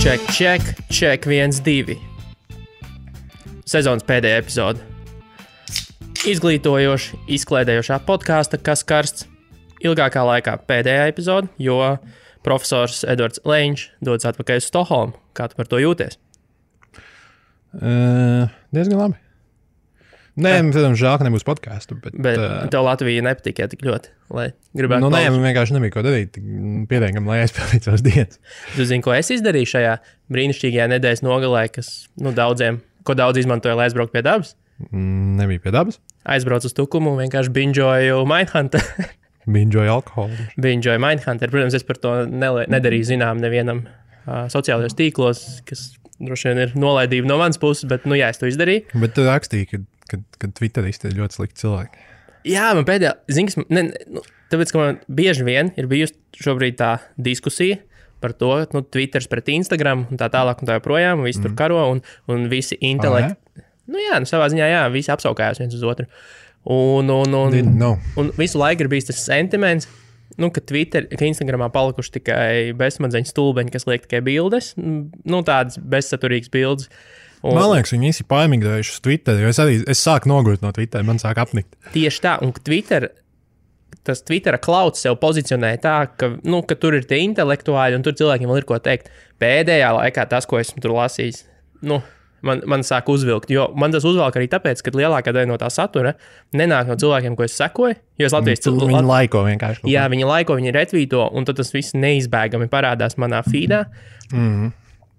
Check 1, 2. Sezonas pēdējā epizode. Izglītojoša, izklaidējošā podkāsta, kas karsts ilgākā laikā pēdējā epizode, jo profesors Edvards Leņš dodas atpakaļ uz Stokholmu. Kā tu par to jūties? Diezgan labi. Nē, protams, žēl, ka nebūs podcastu. Bet tev Latvija nepatika tik ļoti, lai gribētu nē, man vienkārši nebija ko darīt. Pietiekami, lai aizpildītu savas dienas. Tu zini, ko es izdarīju šajā brīnišķīgajā nedēļas nogalē, kas daudziem, ko daudz izmantoja, lai aizbrauktu pie dabas? Nebija pie dabas. Aizbraucu uz Tukumu un vienkārši binžoju Mindhunter. Binžoju alkoholu. Binžoju Mindhunter. Protams, es par to nedarīju zinām nevienam sociālajos tīklos, kas droši vien ir nolaidība no manas puses, bet, jā, es to izdarīju. Bet tu rakstīji, ka Twitteristi ir ļoti slikti cilvēki. Jā, man pēdējā, tāpēc, ka man bieži vien ir bijusi šobrīd tā diskusija par to, Twitters pret Instagram un tā tālāk un tā joprojām, un visi tur karo un visi intelekti. Savā ziņā, jā, visi apsaukājās viens uz otru. Un visu laiku ir bijis tas sentiments, ka Instagramā palikuši tikai bezsmadzeņu stulbeņi, kas liek tikai bildes, tādas bezsaturīgas bildes. Man liekas, viņi visi paimigrējuši uz Twitter, jo es sāku nogurt no Twitter, man sāk apnikt. Tieši tā, un tas Twittera klauds sev pozicionē tā, ka tur ir tie intelektuāļi, un tur cilvēkiem vēl ir ko teikt. Pēdējā laikā tas, ko esmu tur lasījis, man sāk uzvilkt, jo man tas uzvelk arī tāpēc, ka lielākā daļa no tā satura nenāk no cilvēkiem, ko es sekoju, jo es Latvijas cilvēku... Viņi laiko vienkārši. Jā, viņi laiko, viņi retvīto, un tad tas viss neizbēgami parādās manā feedā.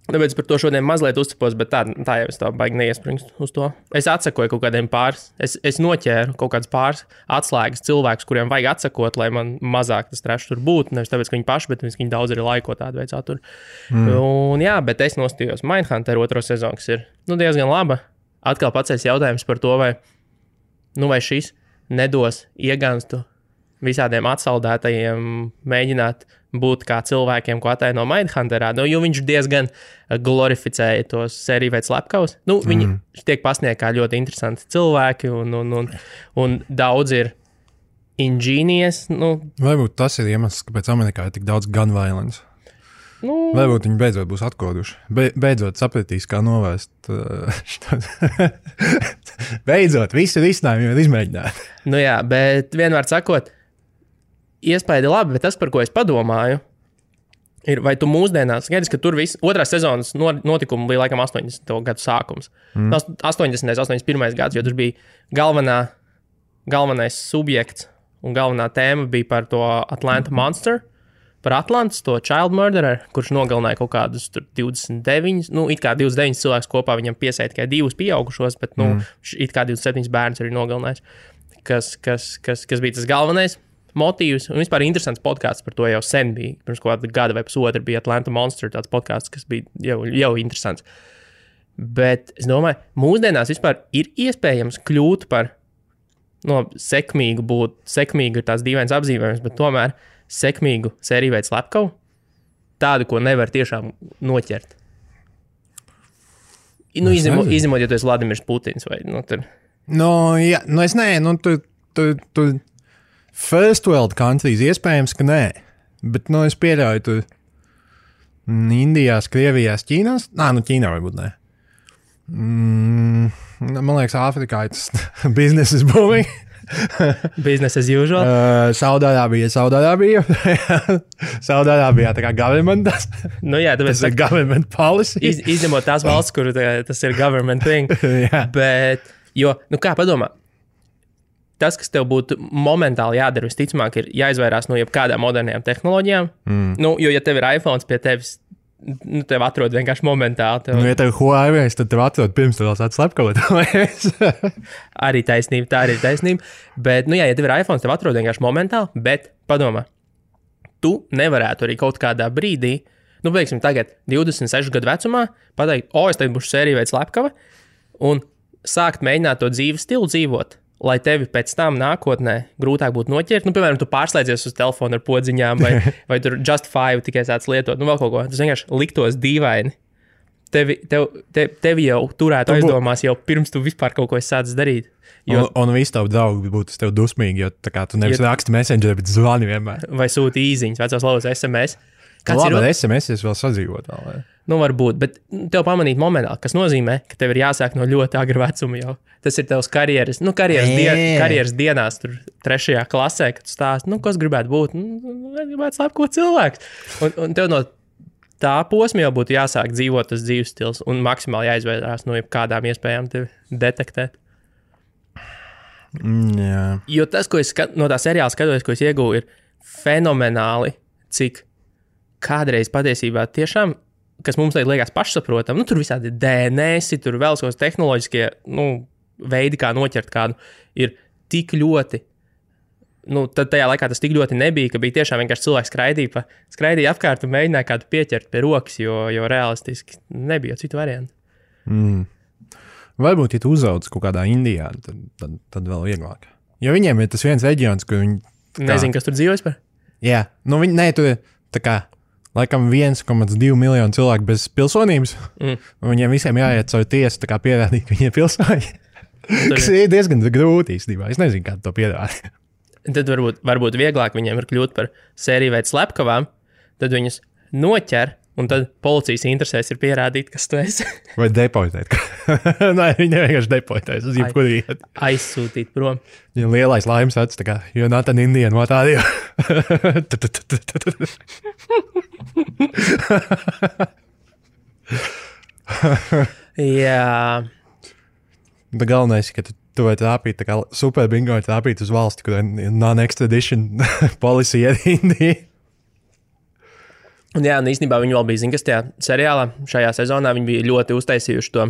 Tāpēc par to šodien mazliet uzcepos, bet tā jau es tā baigi neiespringstu uz to. Es atsakoju kaut kādiem pāris, es noķēru kaut kādas pāris atslēgas cilvēkus, kuriem vajag atsakot, lai man mazāk tas trešs tur būtu. Nevis tāpēc, ka viņi paši, bet viņi daudz arī laiko tādu veidu saturu. Un jā, bet es nostījos Mindhunter 2. sezonu, kas ir diezgan laba. Atkal paceļas jautājums par to, vai šis nedos ieganstu visādiem atsaldētajiem mēģināt būt kā cilvēkiem, ko ataino Mindhunterā, jo viņš diezgan glorificēja tos sēriju veids slepkavus. Viņi tiek pasniegti kā ļoti interesanti cilvēki, un daudz ir ingenious. Varbūt tas ir iemesls, kāpēc Amerikā ir tik daudz gun violence. Varbūt viņi beidzot būs atkoduši. Beidzot sapratīs, kā novērst. Beidzot, visi risinājumi ir izmēģināti. Jā, bet vienmēr sakot, iespēja labi, bet tas, par ko es padomāju, ir, vai tu mūsdienās, skaidrs, ka tur viss, otrās sezonas notikumi bija laikam 80. gadu sākums. 80. 81. gads, jo tur bija galvenais subjekts un galvenā tēma bija par to Atlanta Monster, par Atlantas, to child murderer, kurš nogalināja kaut kādus 29, it kā 29 cilvēkus kopā, viņam piesēja tikai 2 pieaugušos, bet, it kā 27 bērns arī nogalinājis, kas bija tas galvenais motīvs, un vispār interesants podkāsts par to jau sen bija. Pirms kāda gada vai pusotru bija Atlanta Monster, tāds podkāsts, kas bija jau interesants. Bet es domāju, mūsdienās vispār ir iespējams kļūt par sekmīgu ir tās dīvainas apzīmējums, bet tomēr sekmīgu sēriju veids slepkavu, tādu, ko nevar tiešām noķert. Izņemot, ja tu esi Vladimirs Putins vai tur. Jā, es nē, tu First world countries iespējams, ka nē, bet es pieļauju tur Indijās, Krievijās, Ķīnās. Ķīnā varbūt nē. Man liekas, Āfrikā ir tas business is booming. Business as usual. Saudārābija. Saudārābijā tā kā government. Jā, tāpēc tas ir government policy. Izņemot tās valsts, kur tas ir government thing. Bet, kā padomā? Tas, kas tev būtu momentāli jādara, visticamāk, ir jāizvairās no jebkādām modernajām tehnoloģijām. Jo, ja tev ir iPhones pie tevis, tev atrod vienkārši momentāli. Ja tev ir Huawei, tad tev atrod pirms tev sāc slepkavot. Arī taisnība, tā arī ir taisnība. Bet, ja tev ir iPhones, tev atrod vienkārši momentāli, bet padomā, tu nevarētu arī kaut kādā brīdī, veiksim tagad 26 gadu vecumā, pateikt, es tagad būšu sēriju veids slepkava, un sākt mēģināt to dzīves stilu dzīvot. Lai tevi pēc tam nākotnē grūtāk būtu noķert. Piemēram, tu pārslēdzies uz telefonu ar podziņām vai tur Just 5 tikai sāc lietot, vēl kaut ko. Tas vienkārši liktos dīvaini. Tevi jau turētu aizdomās jau pirms tu vispār kaut ko sācis darīt. Un visi tavi draugi būtu tev dusmīgi, jo tu nevis raksti Messengerī, bet zvani vienmēr. Vai sūti īziņas, vecās lauzas SMS. Labi, bet SMS vēl sadzīvot vēl, vai? Nu, varbūt, bet tev pamanīt momentā, kas nozīmē, ka tev ir jāsāk no ļoti agra vecuma jau. Tas ir tavs karjeras dienās, tur 3. klasē, kad tu stāsti, nu, kas gribētu būt, gribētu slepko cilvēks. Un tev no tā posma jau būtu jāsāk dzīvot tas dzīves stils un maksimāli jāizvairās no kādām iespējām tevi detektēt. Jā. Jo tas, ko es no tā seriāla skatos, ko es iegūju, ir fenomenāli, cik kādreiz patiesībā tiešām, kas mums liekas pašsaprotam, nu, tur visādi DNS, tur vēl savas tehnoloģiskie, veidi, kā noķert kādu, ir tik ļoti, tad tajā laikā tas tik ļoti nebija, ka bija tiešām vienkārši cilvēks skraidīja apkārt un mēģināja kādu pieķert pie rokas, jo realistiski nebija citu variantu. Varbūt, ja tu uzauc kaut kādā Indijā, tad vēl vieglāk. Jo viņiem ir tas viens reģions, kur viņi... Nezinu, kas tur dzīvojas par? Jā, tur ir tā kā laikam 1,2 miljonu cilvēku bez pilsonības, un viņiem visiem jāiet caur tiesu, tā kā pierādīt, ka viņi ir pilsoņi. Kas ir diezgan grūti īstenībā. Es nezinu, kā to pierādīt. Tad varbūt vieglāk viņiem ir kļūt par sēriju veidu slepkavām, tad viņus noķer, un tad policijas interesēs ir pierādīt, kas tu esi. Vai deportēt. Nē, viņi vienkārši deportēs uz jebkuru vietu. Aizsūtīt prom. Ja lielais laimes acis, tā kā, you're not an Indian, what are you? Jā. Bet galvenais, ka tu vai trāpīt, tā kā super bingo ir trāpīt uz valsti, kur ir non-extradition policy ar Indiju. Un jā, un īstenībā viņi vēl bija, zin, kas tajā seriālā, šajā sezonā viņi bija ļoti uztaisījuši to,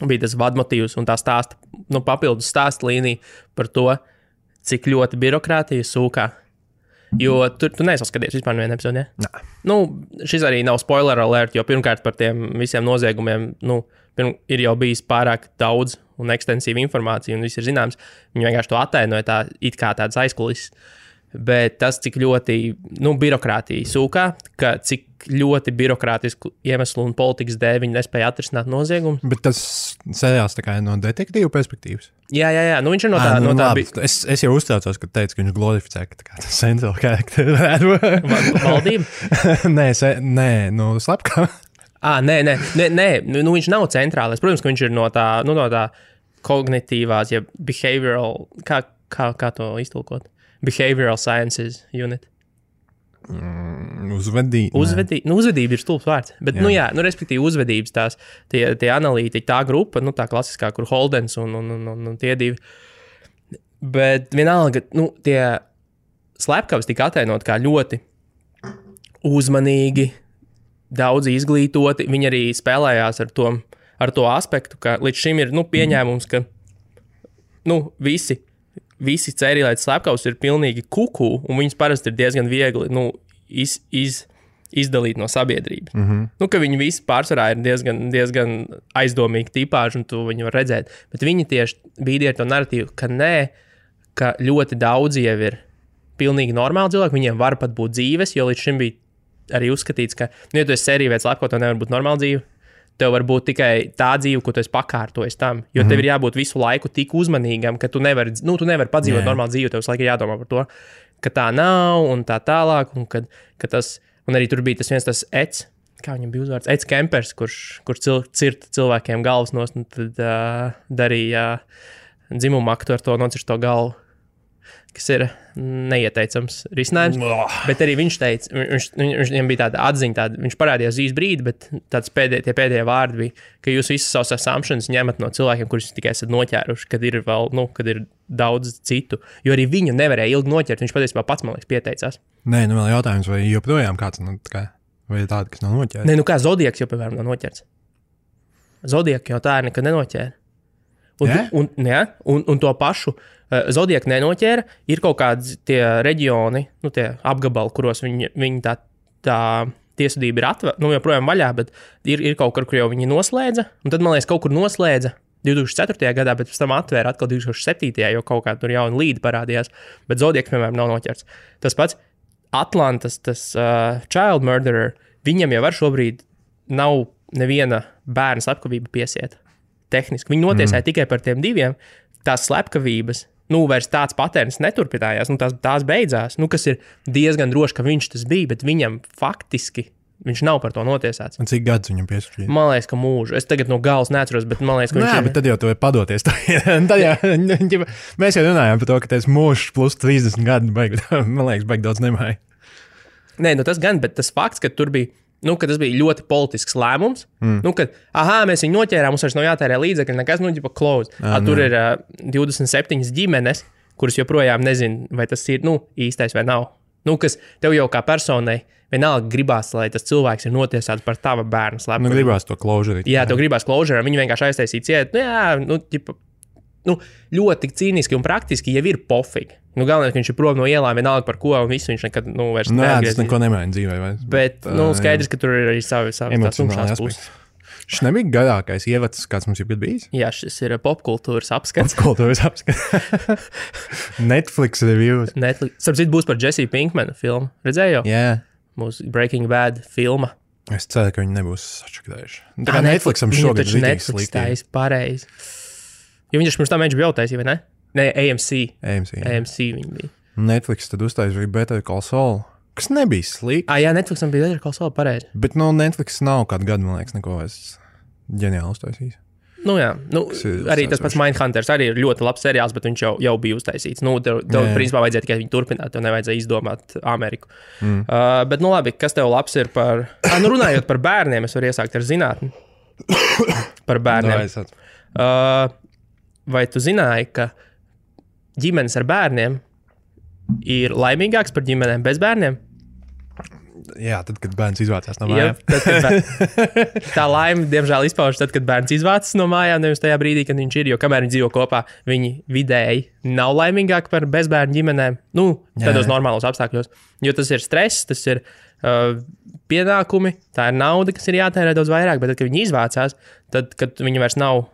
bija tas vadmotīvs un tā stāsta, papildus stāsta līnija par to, cik ļoti birokrātija sūkā. Jo tu neesi skatījies vispār nevienu epizodi, ja? Nē. Šis arī nav spoiler alert, jo pirmkārt par tiem visiem noziegumiem, ir jau bijis pārāk daudz un ekstensīva informācija un viss ir zināms. Viņi vienkārši to attainoja tā, it kā tāds aizkulises. Bet tas, cik ļoti birokrātija sūkā, ka cik ļoti birokrātisku iemeslu un politikas dēļ viņi nespēja atrisināt noziegumu. Bet tas seriāls tā kā ir no detektīvu perspektīvas? Jā. Viņš ir no tā. Es jau uztraucos, ka teicu, ka viņš glorificē, ka tā kā central character. Valdība? Nē, slepkā. Nē, viņš nav centrālais. Protams, ka viņš ir no tā kognitīvās, ja behavioral, kā to iztulkot? Behavioral Sciences Unit. Uzvedība ir stulbs vārds. Bet, respektīvi, uzvedības tie analītiķi, tā grupa, tā klasiskā, kur Holdens un tie divi. Bet vienalga, tie slepkavas tika attainot kā ļoti uzmanīgi, daudz izglītoti. Viņi arī spēlējās ar to aspektu, ka līdz šim ir, pieņēmums, ka, visi cērīlētas slepkavas ir pilnīgi kuku, un viņas parasti ir diezgan viegli izdalīt no sabiedrības. Ka viņi visi pārsvarā ir diezgan aizdomīgi tipāži, un tu viņu var redzēt. Bet viņi tieši bīdīja ar to narratīvu, ka nē, ka ļoti daudzi jau ir pilnīgi normāli cilvēki, viņiem var pat būt dzīves, jo līdz šim bija arī uzskatīts, ka, ja tu esi sērija veids slepko, tev nevar būt normāla dzīve. Tev var būt tikai tā dzīve, ko tu esi pakārtojis tam. Jo tev ir jābūt visu laiku tik uzmanīgam, ka tu nevari padzīvot normālu dzīvi. Tev visu laiku jādomā par to, ka tā nav un tā tālāk. Un arī tur bija tas viens Eds, kā viņam bija uzvārds, Eds Kempers, kurš cirta cilvēkiem galvas nost un tad darīja dzimumu aktu ar to nocirst to galvu, kas ir neieteicams risinājums. Bet arī viņš teica, viņam bija tāda atziņa, viņš parādījās īs brīdi, bet tie pēdējie vārdi bija, ka jūs visas savas assumptions ņemat no cilvēkiem, kurus tikai esat noķēruši, kad ir vēl, kad ir daudz citu. Jo arī viņu nevarēja ilgi noķert, viņš patiesībā pats, man liekas, pieteicās. Nē, vēl jautājums, vai joprojām kāds, vai tāda, kas nav noķērts? Nē, kā Zodiaks jau, piemēram, nav noķerts. Zodiaku jau tā ir nekad nenoķēra. Un to pašu Zodiaku nenoķēra, ir kaut kādi tie reģioni, tie apgabali, kuros viņi tā tiesvedība ir joprojām vaļā, bet ir kaut kur jau viņi noslēdza, un tad, man liekas, kaut kur noslēdza 2004. gadā, bet pēc tam atvēra atkal 2007. jo kaut kā tur jauna līde parādījās, bet Zodiaks, piemēram, nav noķerts. Tas pats Atlantas, tas child murderer, viņam jau šobrīd nav neviena bērna slepkavība piesieta. Tehniski. Viņi notiesāja tikai par tiem diviem. Tās slepkavības, vairs tāds patērns neturpinājās, tās beidzās, kas ir diezgan droši, ka viņš tas bija, bet viņam faktiski viņš nav par to notiesāts. Un cik gadus viņam piespriež? Man liekas, ka mūžu. Es tagad no galas neatceros, bet man liekas, ka viņš ir. Bet tad jau tu vari padoties. Mēs jau runājām par to, ka tas mūžs plus 30 gadi, man liekas, baigi daudz nemāja. Nē, tas gan, bet tas fakts, ka tur bija, ka tas bija ļoti politisks lēmums, kad, mēs viņu noķērām, mums vairs nav jātērē līdzekļi, nekas, close. Tur ir 27 ģimenes, kuras joprojām nezin, vai tas ir, īstais vai nav. Kas tev jau kā personai vienalga gribās, lai tas cilvēks ir notiesāts par tava bērnu slepkavību. Gribās to closure. Jā, tev gribās closure, viņi vienkārši aiztaisīja cietu. Ļoti cīniski un praktiski jau ir pofīgi. Galvenais, ka viņš ir prom no ielām, vienalga par ko, un visu viņš nekad vairs neatgriezīs. Tas neko nemaina dzīvē. Bet, skaidrs, ka tur ir arī savi tumšās puses. Šis nebija garākais ievads, kāds mums ir bijis? Jā, šis ir popkultūras apskats. Netflix reviews. Starp citu būs par Jesse Pinkmanu filmu. Redzēji jau? Jā. Mūsu Breaking Bad filma. Es ceru, ka viņi nebūs sačakrējuši. Tā kā Netflixam šogad ir Netflix taisa pareizi. Jo viņš pirms tam bija jau taisīja, vai ne? Nē, AMC viņi bija. Netflix tad uztaisīja Better Call Saul. Kas nebija slikti. Jā, Netflixam bija Better Call Saul pareizi. Bet Netflix nav kādu gadu, man liekas, neko vairs ģeniāli uztaisījis. Jā, arī tas pats Mindhunters arī ir ļoti labs seriāls, bet viņš jau bija uztaisīts. Tev principā vajadzēja tikai viņu turpināt, tev nevajadzēja izdomāt Ameriku. Bet, labi, kas tev labs ir par... runājot par bērniem, es varu iesākt ar zinātni. Par bērniem. Vai tu zināji, ka ģimenes ar bērniem ir laimīgāks par ģimenēm bez bērniem? Jā, tad, kad bērns izvācās no mājām. Tā laime, diemžēl, izpaužas tad, kad bērns izvācas no mājām, nevis tajā brīdī, kad viņš ir. Jo kamēr viņi dzīvo kopā, viņi vidēji nav laimīgāki par bezbērnu ģimenēm. Tādos normālos apstākļos. Jo tas ir stress, tas ir pienākumi, tā ir nauda, kas ir jātērē daudz vairāk. Bet tad, kad viņi izvācās, tad, kad viņi vairs nav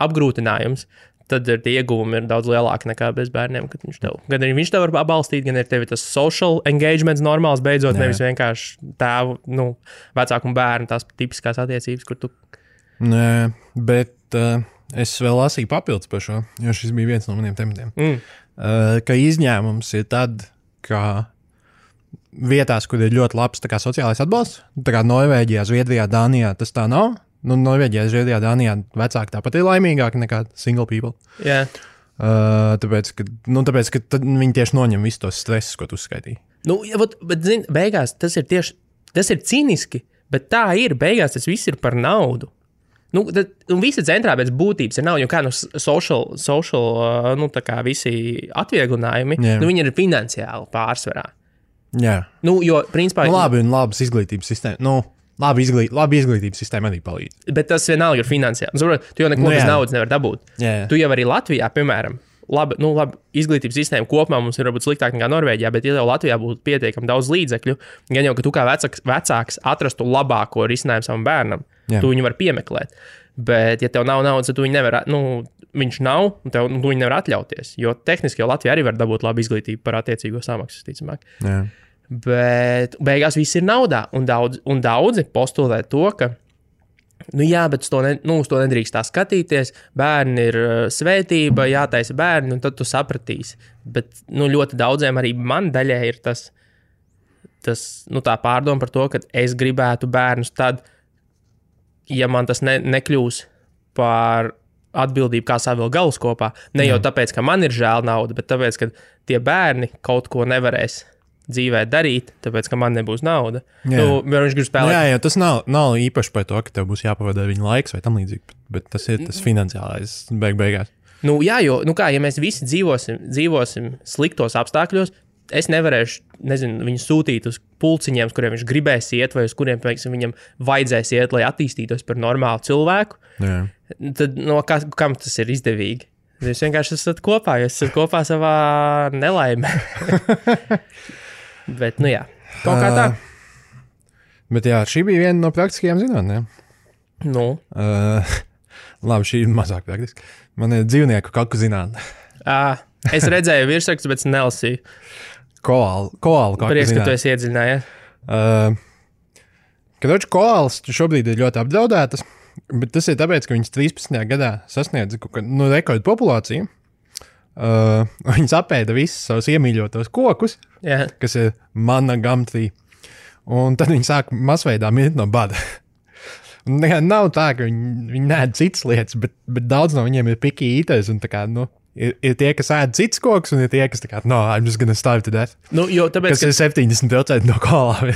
apgrūtinājums, tad tie ieguvumi ir daudz lielāki nekā bez bērniem. Gan arī viņš tev var atbalstīt, gan arī tev ir tas social engagements normāls beidzot, nevis vienkārši tēvu, vecāku un bērnu, tās tipiskās attiecības, kur tu... Nē, bet es vēl lasīju papildus par šo, jo šis bija viens no maniem tematiem. Ka izņēmums ir tad, ka vietās, kur ir ļoti labs tā kā sociālais atbalsts, tā kā Norvēģijā, Zviedrijā, Dānijā, tas tā nav. Norvēģijā, Zviedrijā, Dānijā vecāki tāpat ir laimīgāki nekā single people. Jā. Tāpēc, ka viņi tieši noņem visu tos stresus, ko tu uzskaitīji. Bet zini, beigās tas ir cīniski, bet tā ir, beigās tas viss ir par naudu. Visa centrā pēc būtības ir nauda, jo kā social tā kā visi atvieglinājumi, viņi ir finansiāli pārsvarā. Jā. Jo, principā... labi un labas izglītības sistēma, Labi izglītības sistēma arī palīdz. Bet tas vienalga ir finansiāli. Tu jau neko bez naudas nevar dabūt. Jā. Tu jau arī Latvijā, piemēram, labi izglītības sistēma kopumā mums ir varbūt sliktāk nekā Norvēģijā, bet ja jau Latvijā būtu pietiekami daudz līdzekļu, gan jau, ka tu kā vecāks atrastu labāko risinājumu savam bērnam, tu viņu var piemeklēt. Bet, ja tev nav naudas, tad tu viņu nevar, viņš nav, un tu viņu nevar atļauties. Jo tehniski jau Latvijā arī var dabūt labu izglītību par attiecīgo samaksu, ticamāk. Jā. Bet beigās viss ir naudā, un daudzi postulē to, ka, bet uz to nedrīkst tā skatīties, bērni ir svētība, jātaisa bērni, un tad tu sapratīsi. Bet, ļoti daudziem arī man daļai ir tas tā pārdoma par to, ka es gribētu bērnus tad, ja man tas nekļūs par atbildību, kā savilkt galus kopā. Ne jau tāpēc, ka man ir žēl nauda, bet tāpēc, ka tie bērni kaut ko nevarēs dzīvē darīt, tāpēc, ka man nebūs nauda. Viņš grib spēlēt. Jā, tas nav īpaši par to, ka tev būs jāpavada viņa laiks vai tam līdzīgi, bet tas ir tas finansiālais beigās. Jā, jo, ja mēs visi dzīvosim sliktos apstākļos, es nevarēšu, viņu sūtīt uz pulciņiem, uz kuriem viņš gribēs iet, vai uz kuriem, viņam vajadzēs iet, lai attīstītos par normālu cilvēku. Jā. Tad, kam tas ir izdevīgi? Jūs vienkārši esat kopā, savā nelaimē. Bet, jā, kaut kā tā. Bet jā, šī bija viena no praktiskajām zinātnēm. Labi, šī ir mazāk praktiski. Man ir dzīvnieku kaku zinātne. Es redzēju virsrakstus, bet nelasīju. Koālu kaku Prieks, zinātne. ka tu esi iedziļinājies. Koālas šobrīd ir ļoti apdraudētas, bet tas ir tāpēc, ka viņas 13. gadā sasniedza rekordu populāciju. Viņas apēda visus savus iemīļotos kokus, kas ir mana gumtree. Un tad viņi sāk masveidā mirt no bada. Nav tā, ka viņi nēd citas lietas, bet daudz no viņiem ir picky eaters. Un tā kā, ir tie, kas ēd cits koks, un ir tie, kas tā kā, I'm just gonna starve to death. Tāpēc, kas ir 70% no koalām.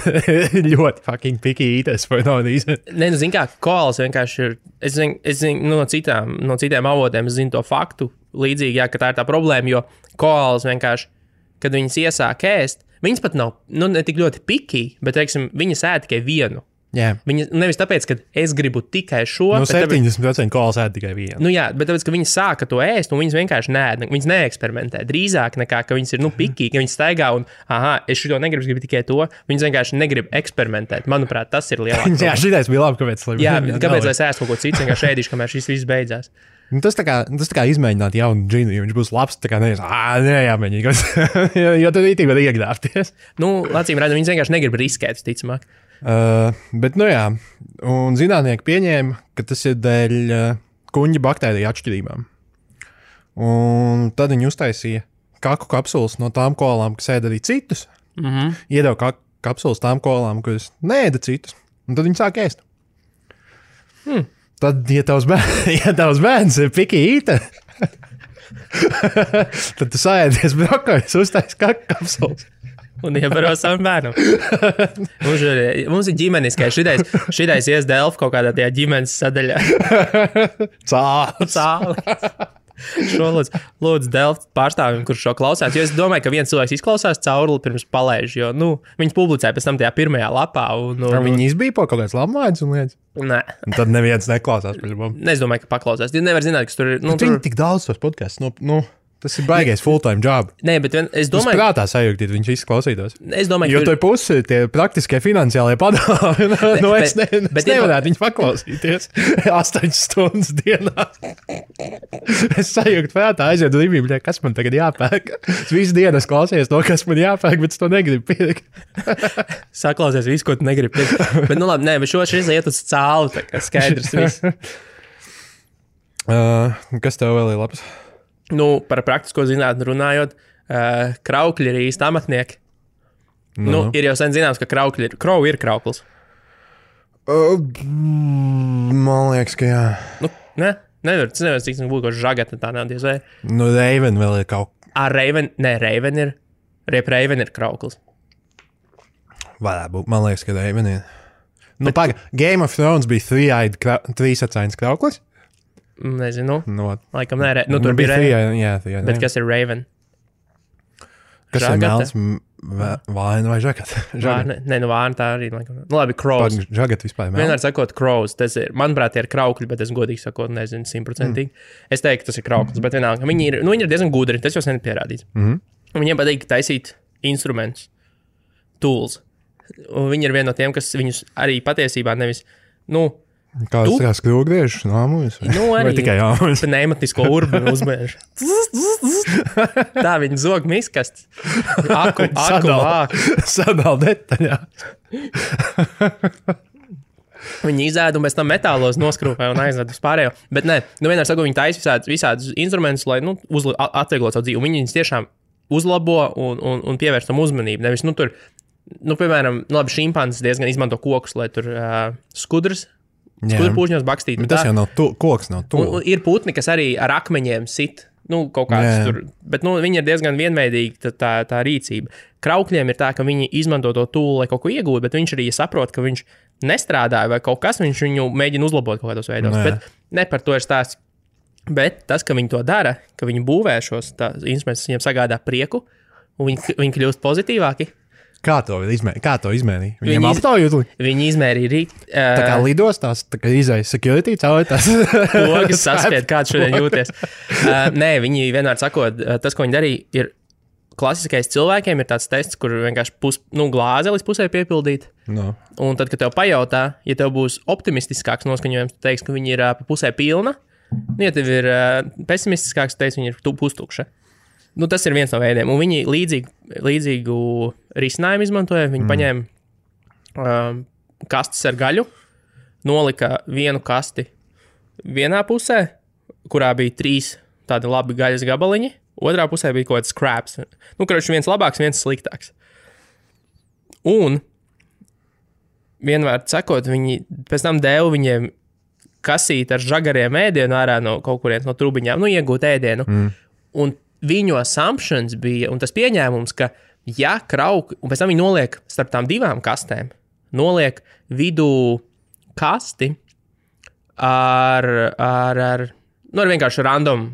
Ļoti fucking picky eaters for no reason. Zin kā, koalas vienkārši ir, es zinu no citiem avotiem, es zinu to faktu līdzīgi, ka tā ir tā problēma, jo koalas vienkārši, kad viņas iesāk ēst, viņas pat nav, ne tik ļoti picky, bet, teiksim, viņas ēd tikai vienu. Yeah. Viņa, nevis tāpēc, ka es gribu tikai šo. 70% koalas ēd tikai vienu. Bet tāpēc, ka viņi sāka to ēst, un viņas vienkārši viņas neeksperimentē. Drīzāk nekā, ka viņas ir, picky, ka viņas staigā un, es šito negribu, es gribu tikai to. Viņas vienkārši negrib eksperimentēt. Manuprāt, tas ir lielāks. Jā, šitais bija labi, kāpēc. Kāpēc es ēstu kaut ko citu, vienkārši ēdīšu, kamēr šis viss beidzās. Tas tā kā izmēģināt jaunu džinu, ja viņš būs labs, tā kā jāmēģina, jo tad īstenībā var iegļāpties. Acīm redzam, viņas vienkārši negrib riskēt, ticamāk. Bet, un zinātnieki pieņēma, ka tas ir dēļ kuņģa baktēriju atšķirībām. Un tad viņi uztaisīja kaku kapsulas no tām koalām, kas ēda arī citus. Iedeva kapsulas tām koalām, kas neēda citus. Un tad viņi sāk ēst. Tad, ja tavs bērns ir picky eater, tad tu saēdies brokoļus, uztaisi kaku kapsulas. Un iebaro savam bērnam. Mums ir ģimeniskais. Šitais ies Delfu kaut kādā tajā ģimenes sadaļā. Cāli. Šo lūdzu Delfu pārstāvim, kurš šo klausās. Jo es domāju, ka viens cilvēks izklausās cauruli pirms palaiž. Jo, viņas publicēja pēc tam tajā pirmajā lapā. Viņi izbīpo kaut kāds labmaids un lietas? Nē. Un tad neviens neklausās pēc mums. Es domāju, ka paklausās. Jūs nevar zināt, kas tur ir. Viņi tik daudz tos podcasts. Tas ir baigais full-time job. Nē, bet es domāju, ka prātā sajūgtīt, viņš visi klausītos. Es domāju, jo to pusi tie praktiskie finansiālie padomi. Es nevarētu viņu paklausīties 8 stundas dienā. Es sajūgtu prātā, aiziet līmīgi, kas man tagad jāpērk. Es visu dienu klausies to, kas man jāpērk, bet es to negribu pirkt. Saklausies visu, ko tu negribi pirkt. Bet labi, bet šis iet uz cālu, tā kā skaidrs viss. Kas tev vēl ir labs? Par praktisko zinātni runājot, kraukļi ir īsti amatnieki. Ir jau sen zināms, ka krovu ir krauklis. Man liekas, ka jā. Nevar, cik būtu kaut žagata tā nav diez vai. Raven vēl ir kaut. Raven ir krauklis. Varētu būt, man liekas, ka Raven ir. Game of Thrones bija trīsacains krauklis. Nezinu. Laikam nē. Tur bija Raven. Jā. Bet kas ir Raven? Kas žagata? Ir melns vāna vai žagata? Vāna tā arī. Labi, crows. Žagata vispār melns. Vienmēr sakot crows. Tas ir, manuprāt, ir kraukļi, bet es godīgi sakot, nezinu 100%. Es teiktu, tas ir krauklis, bet vienalga. Viņi ir diezgan gudri, tas jau sen ir pierādīts. Viņiem patīk taisīt instrumentus, tools. Un viņi ir viena no tiem, kas viņus arī patiesībā nevis, Kāds tā kā skrūgriežs nāmujas? Vai tikai jāmujas? Pneimatisko urbanu uzmēž. Tā viņi zog miskast. Aku vāk. Sadal detaļā. Viņi izēd un pēc tam metālos noskrūpē un aizved uz pārējo. Bet vienmēr saku, viņi taisa visādus instrumentus, lai atvieglot savu dzīvi. Un viņi viņus tiešām uzlabo un pievērš tam uzmanību. Nevis, tur, piemēram, šimpanzes diezgan izmanto kokus, lai tur skudras. Skudrpūžņos bakstīt. Bet tas jau nav koks, nav tūl. Ir putni, kas arī ar akmeņiem sit. Kaut kāds tur. Bet viņi ir diezgan vienveidīgi tā rīcība. Kraukļiem ir tā, ka viņi izmanto to tūlu, lai kaut ko iegūtu, bet viņš arī saprot, ka viņš nestrādāja vai kaut kas, viņš viņu mēģina uzlabot kaut kādos veidos. Bet ne par to ir stāsts. Bet tas, ka viņi to dara, ka viņi būvē šos instrumentus, viņiem sagādā prieku, un viņi kļūst pozitīvāki. Kā to izmērīja? Viņiem aptaujot? Viņi izmērīja rīt. Tā kā lidostās, tā kā izēja security cauri tās. Pogas saspied, kāds šodien jūties. Nē, viņi vienmēr sakot, tas, ko viņi darīja, ir klasiskais cilvēkiem, ir tāds tests, kur vienkārši glāze līdz pusē piepildīt. No. Un tad, kad tev pajautā, ja tev būs optimistiskāks noskaņojums, tu teiksi, ka viņi ir pa pusē pilna. Ja tev ir pesimistiskāks, tu teiksi, viņi ir pustukša. Tas ir viens no veidiem. Un viņi līdzīgu risinājumu izmantoja. Viņi paņēma kastes ar gaļu, nolika vienu kasti vienā pusē, kurā bija 3 tādi labi gaļas gabaliņi, otrā pusē bija kaut kāds scraps. Nu, kurš viens labāks, viens sliktāks. Un vienmēr sakot, viņi pēc tam deva viņiem kasīt ar žagariem ēdienu ārā no kaut kurienes no trubiņām, nu, iegūt ēdienu. Un viņu assumptions bija, un tas pieņēmums, ka ja krauki, un pēc tam viņi noliek starp tām divām kastēm, noliek vidū kasti ar vienkārši random,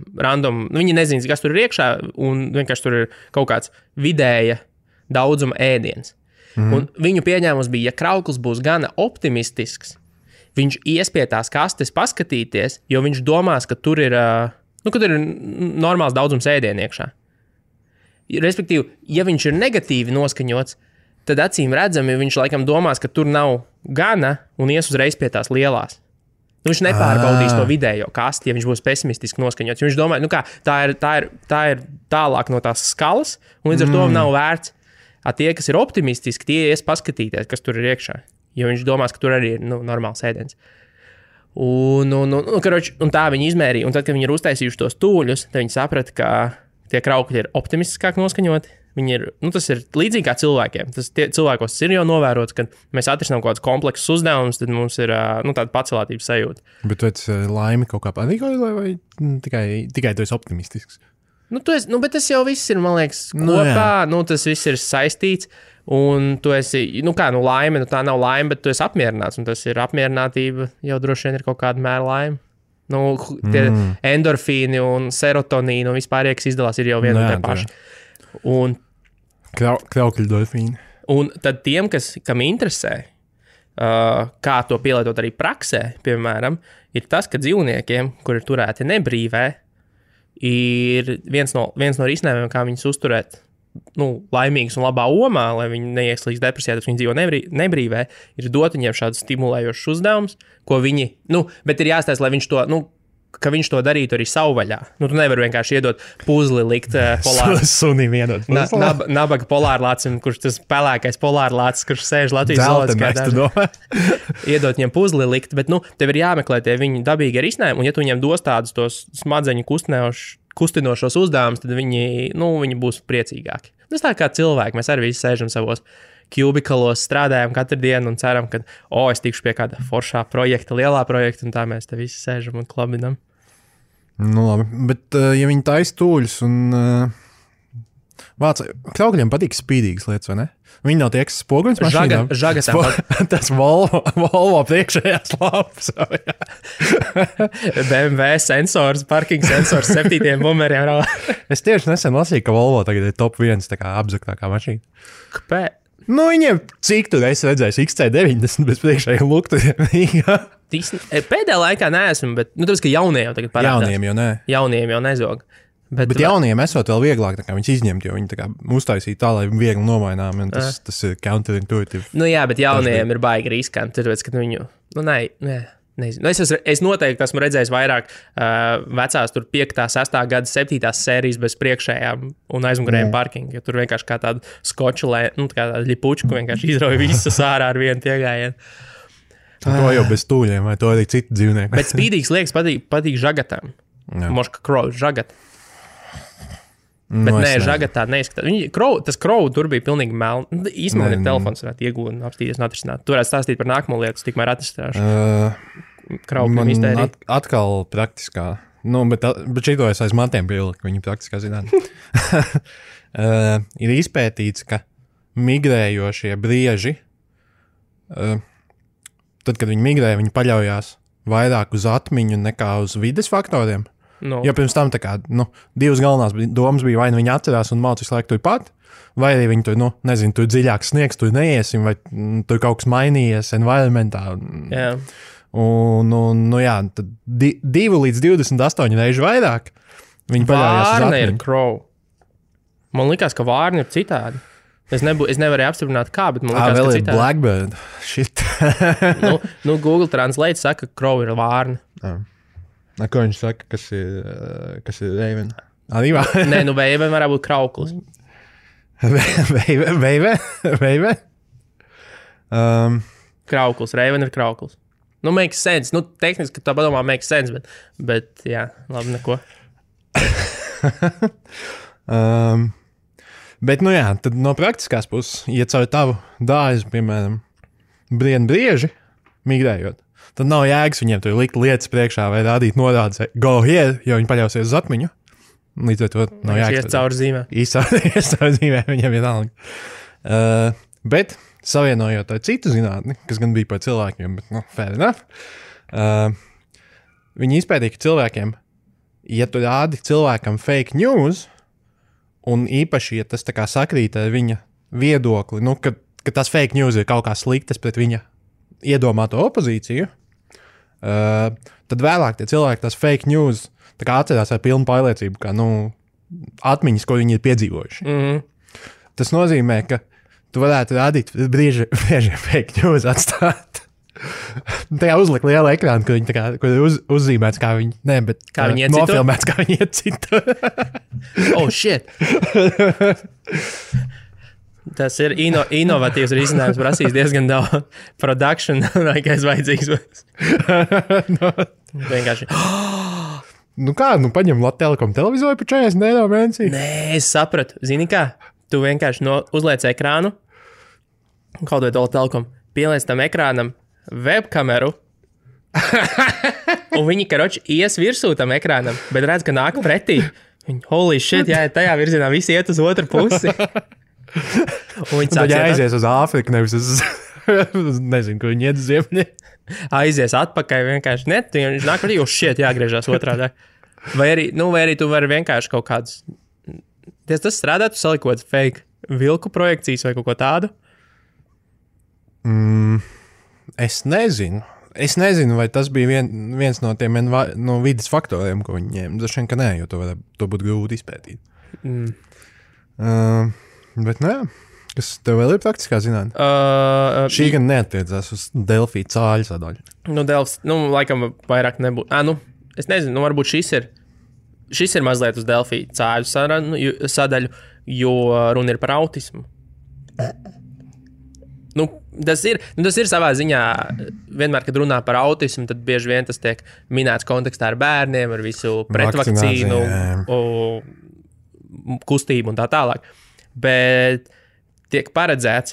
viņi nezina, kas tur ir iekšā, un vienkārši tur ir kaut kāds vidēja daudzuma ēdiens. Un viņu pieņēmums bija, ja krauklis būs gana optimistisks, viņš ies pie tās kastes paskatīties, jo viņš domās, ka tur ir, ka tur ir normāls daudzums ēdienu iekšā. Respektīvi, ja viņš ir negatīvi noskaņots, tad acīm redzami viņš laikam domās, ka tur nav gana un ies uzreiz pie tās lielās. Nu, viņš nepārbaudīs to vidējo kasti, ja viņš būs pesimistiski noskaņots. Viņš domā, tā ir tālāk no tās skalas, un līdz ar to nav vērts. Tie, kas ir optimistiski, tie ies paskatīties, kas tur ir iekšā. Jo viņš domās, ka tur arī ir normāls ēdiens. Un tā viņi izmērīja. Un tad, kad viņi ir uztaisījuši tos tūļus, tad viņi saprata, ka tie kraukļi ir optimistiskāk noskaņoti. Viņi ir, tas ir līdzīgi kā cilvēkiem. Cilvēkos ir jau novērots, ka mēs atrisinām kaut kādus kompleksus uzdevumus, tad mums ir tāda pacelātības sajūta. Bet tu esi laimi kaut kā patīkoja, vai tikai tu esi optimistisks? Bet tas jau viss ir, man liekas, kopā. Tas viss ir saistīts. Un tu esi, laime, tā nav laime, bet tu esi apmierināts. Un tas ir apmierinātība, jau droši vien ir kaut kāda mēra laime. Tie endorfīni un serotonīni un vispār, kas izdalās, ir jau viena un tie paši. Un kraukļu dofīni. Un tad tiem, kam interesē, kā to pielietot arī praksē, piemēram, ir tas, ka dzīvniekiem, kuri ir turēti nebrīvē, ir viens no risinājumiem, kā viņus uzturēt laimīgus un labā omā, lai viņi neieslīgst depresijā, tad viņi dzīvo nebrīvē, ir dot viņiem šādus stimulējošus uzdevumus, ko viņi, bet ir jāstāsta, lai viņš to, ka viņš to darītu arī savvaļā. Tu nevari vienkārši iedot puzli, likt polāru. Sunim iedot puzli. Nabaga polārlācim, kurš tas pelēkais polārlācis, kurš sēž Latvijas zooloģiskajā dārzā. Iedot viņiem puzli likt, bet tev ir jāmeklē tie viņu dabīgi risinājumi, un ja tu viņiem dos tādus tos smadzeņu kustinošos uzdevumus, tad viņi būs priecīgāki. Tas tā kā cilvēki, mēs arī visi sēžam savos kubikalos, strādājam katru dienu un ceram, ka es tikšu pie kāda foršā projekta, lielā projekta, un tā mēs te visi sēžam un klabinam. Labi, bet ja viņi taisa tūļus un kraukļiem patīk spīdīgas lietas, vai ne? Viņi nav tie, kas spoguļus mašīnām. Žagatām. Tas Volvo priekšējās lapas. BMW sensors, parking sensors 7 bumeriem. Es tieši nesen lasīju, ka Volvo tagad ir top 1 tā kā apzaktākā mašīna. Kāpēc? Viņiem cik tur es redzēju XC90 bez priekšējiem luktiem. Pēdējā laikā neesmu, bet tāpēc, ka jaunie jau tagad parādās. Jauniem jau nezog. Bet jauniem esot vēl vieglāk viņus izņemt, jo viņi tā kā uztaisīja tā, lai viegli nomainām, un tas ir counterintuitive. Jā, bet jauniem ir baigi riskanti, tāpēc, ka viņu, nezinu. Es noteikti esmu redzējis vairāk vecās tur 5., 6. gada 7. sērijas bez priekšējām un aizmugurējiem parkingu, jo tur vienkārši kā tāda skoču, kā tāda ļipučku vienkārši izrauja visas ārā ar vienu piegājienu. To jau bez tūļiem, vai to arī citi dzīvnieki. Bet spīdīgs liekas patīk žagatām. Moška krovu žagat. Bet žagatā neizskatās. Tas krovu tur bija pilnīgi melni. Īstenībā ir telefons, varētu iegūt un apstīties un atrisināt. Tu varētu stāstīt par nākamo lietu, tikmēr atrisināšu. Kraukļiem iztērī. Atkal praktiskā. Bet šito es aiz matiem pieliku, viņi praktiskā zinātnē. Ir izpētīts, ka migrējošie brieži, tad, kad viņi migrē, viņi paļaujās vairāk uz atmiņu nekā uz vides faktoriem. Jo pirms tam divas galvenās domas bija, vai viņi atcerās un mācīs visu laiku turpat, vai arī viņi tur, tur dziļāks sniegs, tur neiesim, vai tur kaut kas mainījies environmentā. Jā. Tad 2 līdz 28 reižu vairāk viņi paļaujās uz atmiņu. Vārna ir crow. Man likās, ka vārna ir citādi. Es nevarēju apstiprināt kā, bet man likās, ka citādi. Blackbird. Shit. Google Translate saka, ka crow ir vārna. Ko viņš saka, kas ir Raven? Nē, Raven varētu būt krauklis. Raven? Krauklis, Raven ir krauklis. Makes sense. Tehniski tā padomā makes sense, bet jā, labi, neko. Bet, nu jā, tad no praktiskās puses, ja caur tavu dārzu, piemēram, brien brieži, migrējot, tad nav jēgas viņiem tur likt lietas priekšā vai rādīt norādes, go here, jo viņi paļausies uz atmiņu. Līdz ar to nav jēgas. Ies caur zīmē. Ies caur zīmē, viņiem ir alga. Bet, savienojot ar citu zinātni, kas gan bija par cilvēkiem, bet, nu, fair enough, viņi izpētīja, ka cilvēkiem, ja tu rādi cilvēkam fake news, un īpaši, ja tas tā kā sakrīt ar viņa viedokli, nu, ka tas fake news ir kaut kā sliktas pret viņa iedomāto opozīciju, tad vēlāk tie cilvēki tas fake news tā kā atcerās ar pilnu pārliecību, kā, nu, atmiņas, ko viņi ir piedzīvojuši. Tas nozīmē, ka tu varētu rādīt brieži fake news atstāt. Tajā uzlikt lielu ekrānu, kur viņi tā kā, kur ir uzzīmēts, kā viņi, ne, bet kā viņi iecito? Nofilmēts, kā viņi iecito. Oh, shit! Tas ir inovatīvs risinājums, prasīs diezgan daudz production, laikais vajadzīgs. Vienkārši. Nu kā, nu paņem Latelekom televizoru par 40 eiro mēnesī? Nē, es sapratu. Zini kā? Tu vienkārši uzliec ekrānu, kaut vai Latelekom, pieliec tam ekrānam webkameru, un viņi, karoči, ies virsū tam ekrānam, bet redz, ka nāk pretī. Viņi, holy shit, jā, tajā virzienā visi iet uz otru pusi. Un viņi sāk aizies uz Āfriku, nevis uz, nezinu, ko viņi iet uz ziemļi. Aizies atpakaļ vienkārši, ne, viņš nāk pretī, jo shit, jāgriežās otrādā. Vai arī tu vari vienkārši kaut kādus, tas strādāt, tu salikot fake vilku projekcijas vai kaut ko tādu? Es nezinu, vai tas bija viens no tiem no vidas faktoriem, ko viņi ņēma. Dažiem, ka nē, jo to būtu grūti izpētīt. Bet, nu jā, kas tev vēl ir praktiskā zinātne? Šī gan neattiecās uz Delfī cāļu sadaļu. Laikam vairāk nebūtu. Es nezinu, varbūt šis ir mazliet uz Delfī cāļu sadaļu, jo runa ir par autismu. Tas ir savā ziņā, vienmēr, kad runā par autismu, tad bieži vien tas tiek minēts kontekstā ar bērniem, ar visu pretvakcīnu, kustību un tā tālāk. Bet tiek paredzēts,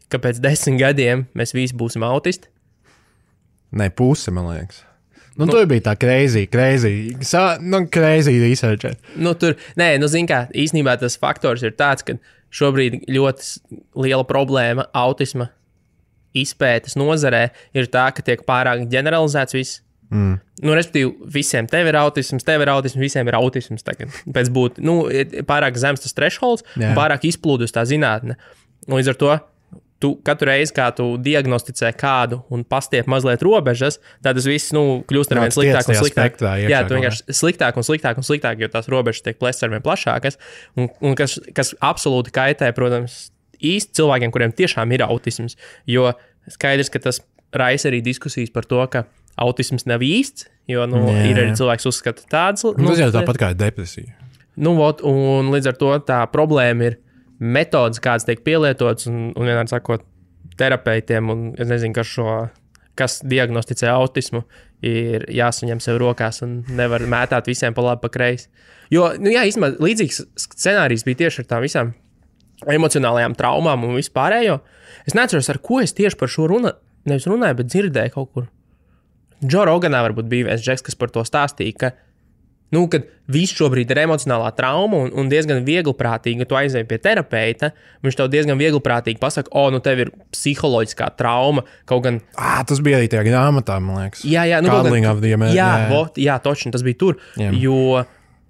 ka pēc 10 gadiem mēs visi būsim autisti. Nē, puse, man liekas. Tur bija tā crazy research. Zin kā, īstenībā tas faktors ir tāds, ka šobrīd ļoti liela problēma autisma izpētes nozarē ir tā, ka tiek pārāk ģeneralizēts viss. Respektīvi, visiem tev ir autisms, visiem ir autisms tagad. Pēc būt, pārāk zems tas thresholds, pārāk izplūdus tā zinātne. Līdz ar to, tu katru reizi, kā tu diagnosticē kādu un pastiep mazliet robežas, tad tas viss, kļūst ar vien sliktāk un sliktāk. Jā, tu vienkārši sliktāk un sliktāk, jo tās robežas tiek plēstas ar vien plašākas, un kas absolūti kaitē, protams, īsti cilvēkiem, kuriem tiešām ir autisms, jo skaidrs, ka tas raisa arī diskusijas par to, ka autisms nav īsts, jo, ir arī cilvēks uzskata tādas. Tas jau tāpat kā ir depresija. Un līdz ar to tā problēma ir metodas, kādas tiek pielietotas, un vienādi sakot, terapeitiem, un es nezinu, kas diagnosticē autismu, ir jāsaņem sev rokās un nevar mētāt visiem pa labi, pa kreisi. Jo, īstenībā līdzīgs scenārijs bija tieši ar tām visām emocionālajām traumām un vispārējo. Es neatceros, ar ko es tieši par šo nevis runāju, bet dzirdēju kaut kur. Joe Roganā varbūt bija viens džeks, kas par to stāstīja, ka kad viss šobrīd ir emocionālā trauma un diezgan viegliprātīgi, ja tu aizēji pie terapeita, viņš tev diezgan viegliprātīgi pasaka, tev ir psiholoģiskā trauma, kaut gan... Tas bija arī tajā grāmatā, man liekas. Jā, točni, tas bija tur, jo,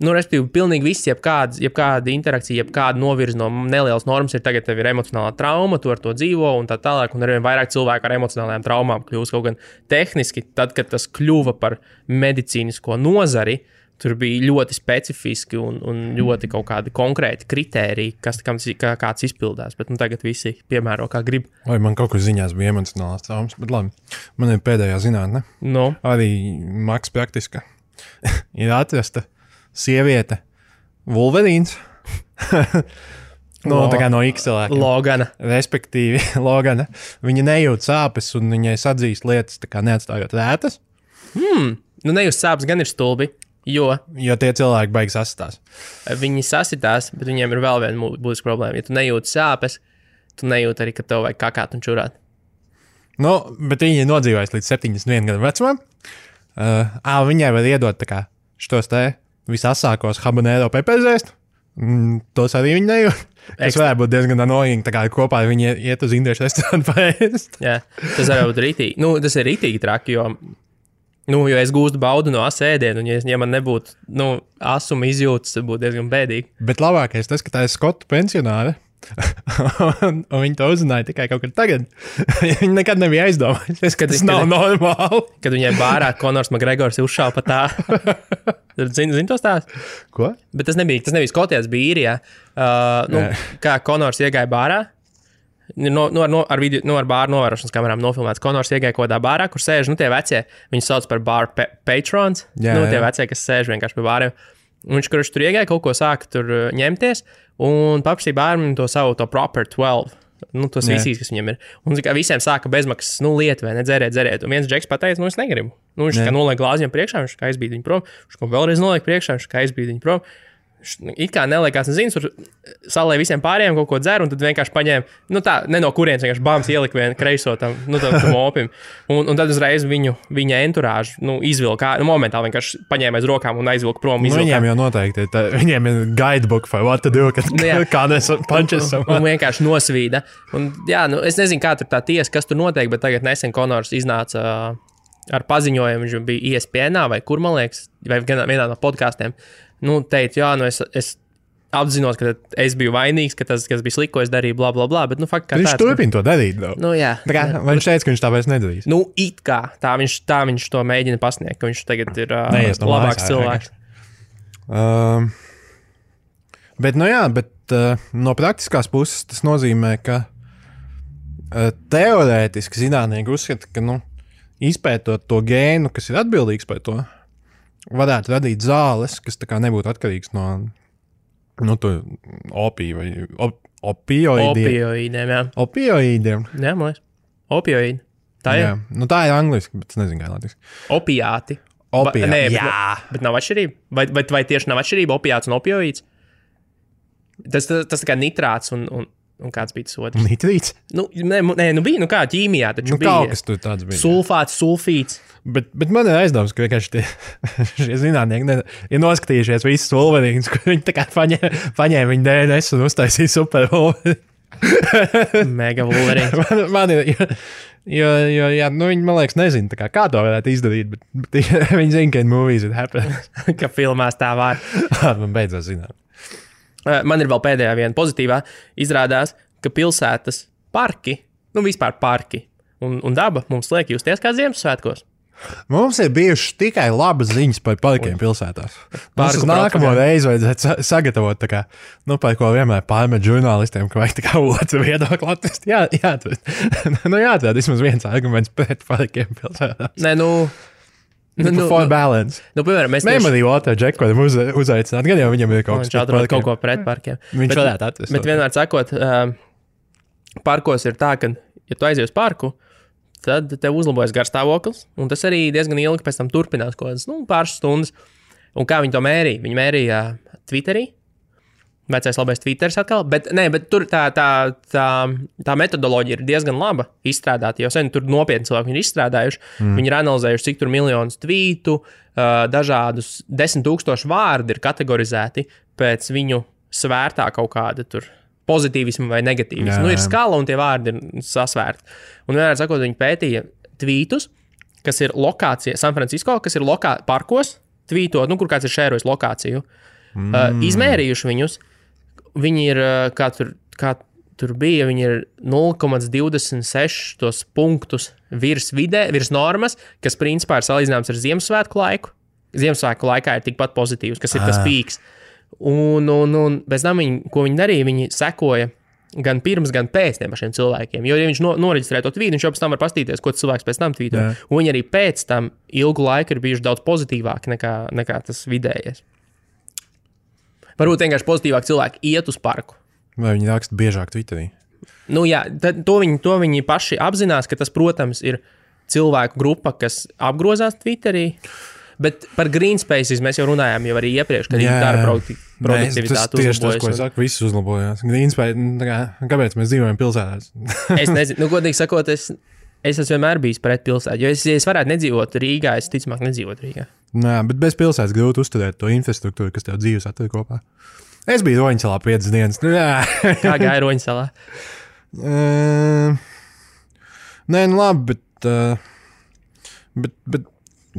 respektīvi, pilnīgi viss, jebkāda interakcija, jebkāda novirza no nelielas normas ir tagad tev ir emocionālā trauma, tu ar to dzīvo un tā tālāk, un arvien vairāk cilvēku ar emocionālajām traumām kļūst kaut gan tehniski, tad, kad tas kļuva par medicīnisko nozari, tur bija ļoti specifiski un ļoti kaut kādi konkrēti kritēriji, kāds izpildās, bet tagad visi piemēro, kā grib. Vai man kaut kur ziņās bija emocionālās traumas, bet labi, man ir pēdējā zinātne. Arī maks praktiska. Ir atrasta sieviete Wolverīns. Tā kā no X cilvēkiem. Logana. Respektīvi, Logana. Viņa nejūt sāpes un viņai sadzīst lietas, tā kā neatstājot rētas. Nejūt sāpes gan ir stulbi. Jo tie cilvēki baigs sasitās. Viņi sasitās, bet viņiem ir vēl viena būtiska problēma. Ja tu nejūti sāpes, tu nejūti arī, ka tev vajag kakāt un čurāt. Nu, bet viņi nodzīvojas līdz 71 gadu vecumam. Viņai var iedot tā kā šitos te visasākos habanero pepezēst. Tos arī viņi nejūt. Tas varētu būt diezgan annoying, tā kā kopā viņi iet uz indiešu restorānu paēst. Jā, tas var būt rītīgi. Nu, tas ir rītīgi traki, jo es gūstu baudu no ēdienu, un ja man nebūtu, asuma izjūtas, tad būtu diezgan bēdīgi. Bet labākais tas, ka tā ir skotu pensionāre, un viņi to uzzināja tikai kaut kad tagad. Viņi nekad nebija aizdomājušies, ka tas nav normāli. Kad viņai bārā Konors Makgregors uzšāva pa tā. Zini to stāstu? Ko? Bet tas nebija Skotijā, tas bija Īrijā. Kā Konors iegāja bārā, ar bāru novērošanas kamerām nofilmēts. Konors iegāja kaut kādā bārā, kur sēž, tie vecie, viņus sauc par bar patrons, tie vecie, kas sēž vienkārši pie bāriem. Viņš, kurš tur iegāja, kaut ko sāka tur ņemties, un paprasīja bāriem to savu to proper 12. Tos visīs, kas viņam ir. Un visiem sāka bezmaksas, lietu, vai ne, dzeriet. Un viens džeks pateica, es negribu. Viņš kā noliek glāzi viņam priekšā, viņš kā aizbīd viņu prom. Viņš kā vēlreiz noliek priekšā, viņš kā aizbīd viņu prom. It kā neliekās, tur salēja visiem pārējiem kaut ko dzer, un tad vienkārši paņēma, ne no kurienes, vienkārši bāms ielika vienu kreiso tam opim. Un tad uzreiz viņa enturāžu, izvilka, momentāli vienkārši paņēma aiz rokām un aizvilka prom. Viņiem jau noteikti, viņiem ir guidebook for what to do, kā nes punches. Un vienkārši nosvīda. Un, es nezinu, kā tur tā tiesa, kas tur notiek, bet tagad nesen Konors iznāca ar paziņojumu, viņš bija ESPN vai kur, man liekas, vai vienā no podkāstiem. Teica, es apzinos, ka es biju vainīgs, ka tas, kas bija slikko, es darīju, bla, bla, bla, bet, viņš turpina to darīt, jā. Viņš teica, ka viņš tā vairs nedarīs. It kā, tā viņš to mēģina pasniegt, ka viņš tagad ir labāks cilvēks. Bet no praktiskās puses tas nozīmē, ka teorētiski zinātnieki uzskata, ka, izpētot to gēnu, kas ir atbildīgs par to, varētu radīt zāles, kas tā kā nebūtu atkarīgs no opiju vai opioīdiem. Jā. Opioīdiem? Jā, man liekas. Opioīdi. Tā ir? Jā. Tā ir angliski, bet es nezinu, kā latviešu. Opiāti. Bet nav atšķirība? Vai tieši nav atšķirība opiāts un opioīds? Tas tā kā nitrāts un kāds bija tas otrs? Nitrīts? Bija, kā ķīmijā taču bija. Kaut kas tur tāds bija. Sulfāts, sulfīts. Bet man ir aizdoms, ka vienkārši šie zinātnieki ir noskatījušies visus Wolverines, kur viņi tā kā paņēma viņu DNS un uztaisīja super Wolverine. Mega Wolverine. Man ir, jo viņi, man liekas, nezina, kā to varētu izdarīt, bet viņi zina, ka in movies it happens. Ka filmās tā var. Man beidzās zināt. Man ir vēl pēdējā viena pozitīvā. Izrādās, ka pilsētas parki, vispār parki un daba mums liek justies kā Ziemassvētkos. Mums ir bijušas tikai labas ziņas par parkiem pilsētās. Mums uz nākamo reizi vajadzētu sagatavot, par ko vienmēr pārmet žurnālistiem, ka vajag otru viedokli atrast. Jāatrod vismaz viens arguments pret parkiem pilsētās. For balance. Piemēram, mēs arī otru džeku varam uzaicināt, gan jau viņam ir kaut ko pret parkiem. Viņš varētu atrast. Bet vienmēr sakot, parkos ir tā, ka, ja tu aizies parku, tad tev uzlabojas garstāvoklis, un tas arī diezgan ilgi pēc tam turpinās kaut kādas, pāris stundas. Un kā viņi to mērīja? Viņi mērīja Twitterī, vecais labais Twitters atkal, bet tur tā metodoloģija ir diezgan laba izstrādāta, jo sen tur nopietni cilvēki ir izstrādājuši. Viņi ir analizējuši, cik tur miljonus tvītu, dažādus 10,000 vārdi ir kategorizēti pēc viņu svērtā kaut kāda tur pozitīvismu vai negatīvismu. Ir skala un tie vārdi ir sasvērti. Un vienmēr sakot, viņi pētīja tvītus, kas ir lokācija San Francisco, kas ir parkos, tvītot, kur kāds ir šērojis lokāciju. Izmērījuši viņus, viņi ir, kā tur bija, viņi ir 0,26 punktus virs normas, kas principā ir salīdzināms ar Ziemassvētku laiku. Ziemassvētku laikā ir tikpat pozitīvs, kas ir tas pīks. Un pēc tam ko viņi darīja, viņi sekoja gan pirms, gan pēc tiem pašiem cilvēkiem. Jo, ja viņš noreģistrē to tvītu, viņš jau pēc tam var pastīties, ko cilvēks pēc tam tvīto. Un viņi arī pēc tam ilgu laiku ir bijuši daudz pozitīvāki nekā tas vidējais. Varbūt vienkārši pozitīvāk cilvēki iet uz parku. Vai viņi raksta biežāk Twitterī? To viņi paši apzinās, ka tas, protams, ir cilvēku grupa, kas apgrozās Twitterī. Bet par green spaces mēs jau runājām jau arī iepriekš, kad dara produktivitāti uzlabojas. Tieši tas, ko es saku, viss uzlabojās. Green space, kāpēc mēs dzīvojam pilsētās? Es nezinu, godīgi sakot, es esmu vienmēr bijis pret pilsētu, jo es varētu nedzīvot Rīgā, es ticamāk nedzīvot Rīgā. Nē, bet bez pilsētas grūti uzturēt to infrastruktūru, kas tev dzīves atver kopā. Es biju Roņsalā 5 dienas. Kā gāja Roņsalā? Nē, nu labi, bet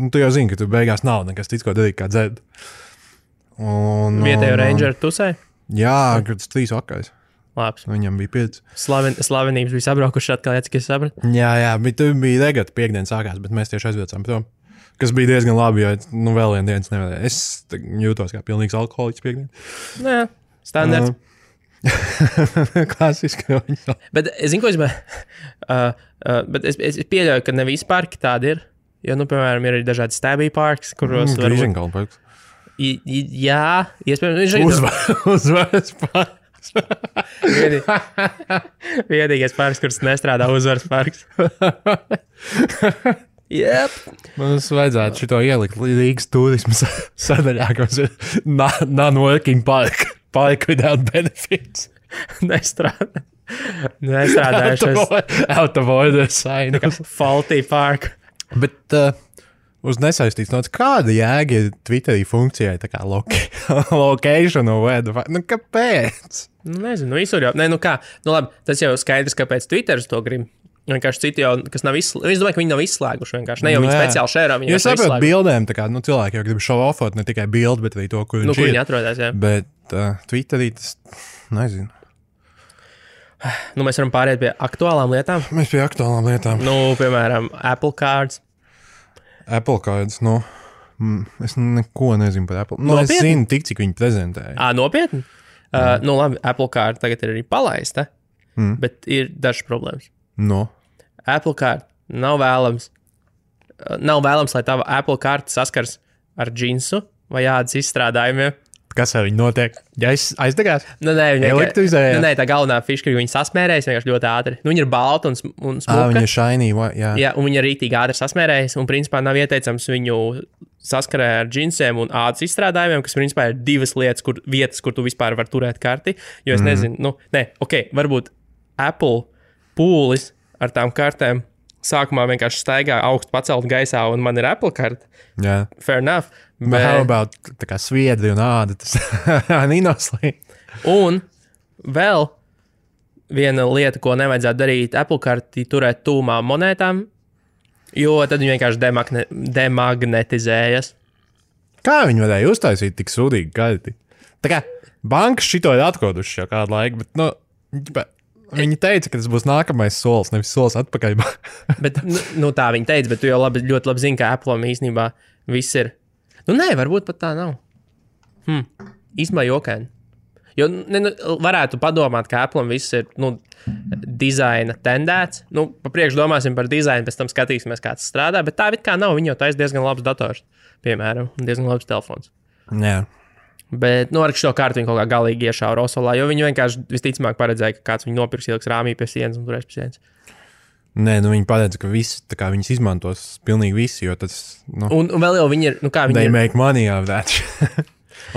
tu jau zini, ka tu beigās nav nekas cits, ko darīt, kā dzert. Vietējo rangeru tusē? Jā, kad tas 3 vakars. Labs. Viņam bija 5. Slavenības bija sabraukuši atkal, cik es sapratu. Jā, bet tu bija regata piekdienas sākās, bet mēs tieši aizvecām prom. Kas bija diezgan labi, jo vēl viena dienas nevarēja. Es jūtos kā pilnīgs alkoholiķis piekdien. Nē, standarts. Klasiski Roņsalā. Bet es zinu, ko bet es pieļauju, ka ne visi parki tādi ir. Jo, piemēram, ir arī dažādi stabby parks, kuros var... Grīženkalna parks. Jā, iespējams. Uzvaras parks. Vienīgais parks, kurš nestrādā, Uzvaras parks. Yep. Mums vajadzētu šito ielikt Rīgas turismu sadaļā, kas ir non-working park without benefits. Nestrādā. Out of order sign. Faulty park. Bet uz nesaistīts nots, kāda jēga ir Twitterī funkcijai tā kā location or where the fuck? Nu, kāpēc? Nezinu, visur jau. Nē, kā? Labi, tas jau skaidrs, kāpēc Twitteris to grib. Vienkārši citi jau, kas nav izslēguši. Es domāju, ka viņi nav izslēguši vienkārši. Ne jau viņi speciāli šērā, viņi jau saprot bildēm, tā kā, cilvēki jau grib show-offot ne tikai bildi, bet arī to, kur viņš ir. Viņi atrodas, jā. Bet Twitterī tas, nezinu. Mēs varam pāriet pie aktuālām lietām. Mēs pie aktuālām lietām. Piemēram, Apple Cards. Apple Cards, es neko nezinu par Apple. Es zinu tik, cik viņi prezentēja. Nopietni? Labi, Apple Card tagad ir arī palaista, bet ir dažas problēmas. Apple Card nav vēlams. Nav vēlams, lai tava Apple Card saskars ar džinsu vai ādas izstrādājumiem. Kas ar viņu notiek? Ja aizdegās? Nē, elektrizēja? Nē, tā galvenā fiška, ka viņi sasmērējas vienkārši ļoti ātri. Viņi ir balti un smuka. Viņa ir shiny, jā. Jā, un viņi ir rītīgi ātri sasmērējas, un principā nav ieteicams viņu saskarē ar džinsiem un ādas izstrādājumiem, kas principā ir divas vietas, kur tu vispār vari turēt karti. Jo es nezinu, varbūt Apple pūlis ar tām kartēm sākumā vienkārši staigā augstu pacelt gaisā, un man ir Apple karta. Jā. Fair enough. Bet how about tā kā sviedri un āda, tas ninoslī. Un vēl viena lieta, ko nevajadzētu darīt, Apple karti turēt tūmā monētām, jo tad viņi vienkārši demagnetizējas. Kā viņi varēja uztaisīt tik sūdīgi karti? Tā kā bankas šito ir atkoduši jau kādu laiku, bet, viņi teica, ka tas būs nākamais solis, nevis solis atpakaļ. Bet, tā viņi teica, bet tu jau ļoti labi zini, ka Apple'am īstenībā viss ir. Varbūt pat tā nav. Īstenībā jokaini. Jo varētu padomāt, ka Apple'am viss ir dizaina tendēts. Pa priekšu domāsim par dizainu, pēc tam skatīsimies, kā tas strādā, bet tā it kā nav. Viņi jau taisa diezgan labs dators, piemēram, un diezgan labs telefons. Jā. Bet, ar šo kārtu viņi kaut kā galīgi iešāva Rosolā, jo viņi vienkārši visticamāk paredzēja, ka kāds viņu nopirks ieliks rāmī pie sienas un turēs pie sienas. Nē, viņi paredz, ka visi, viņas izmantos pilnīgi visi, jo tas, Un vēl jau viņi ir, they make money out of that.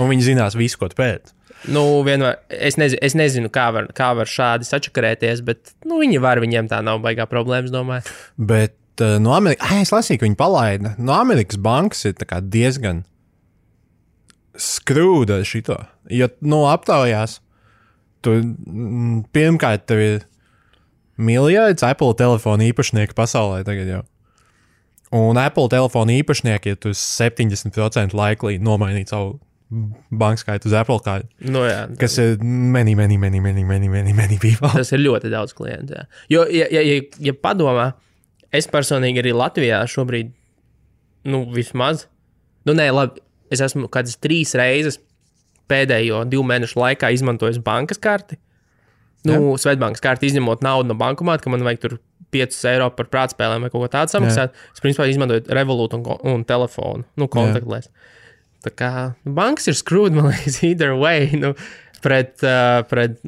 Un viņi zinās visu, ko pēt. Vienmēr, es nezinu, kā var šādi sačakarēties, bet, viņi var, viņiem tā nav baigā problēmas, domāju. Bet, es lasīju, ka viņi palaida. Amerikas bankas ir tā kā diezgan skrūda šito. Jo, aptaujās, tu pirmkārt tev ir miljards Apple telefonu īpašnieku pasaulē tagad jau. Un Apple telefonu īpašnieki ir 70% laiklī nomainīt savu bankas skaitu uz Apple kārtu. Jā. Kas ir many people. Tas ir ļoti daudz klientu, jā. Jo, ja padomā, es personīgi arī Latvijā šobrīd, vismaz, labi, es esmu kādas 3 reizes pēdējo 2 mēnešu laikā izmantojis bankas karti. Svetbankas karti izņemot naudu no bankomāta, ka man vajag tur 5 eiro par prātspēlēm vai kaut ko tādu samaksāt. Es principā izmantoju Revolut un telefonu, kontaktlēs. Tā kā bankas ir screwed, man liekas, either way, pret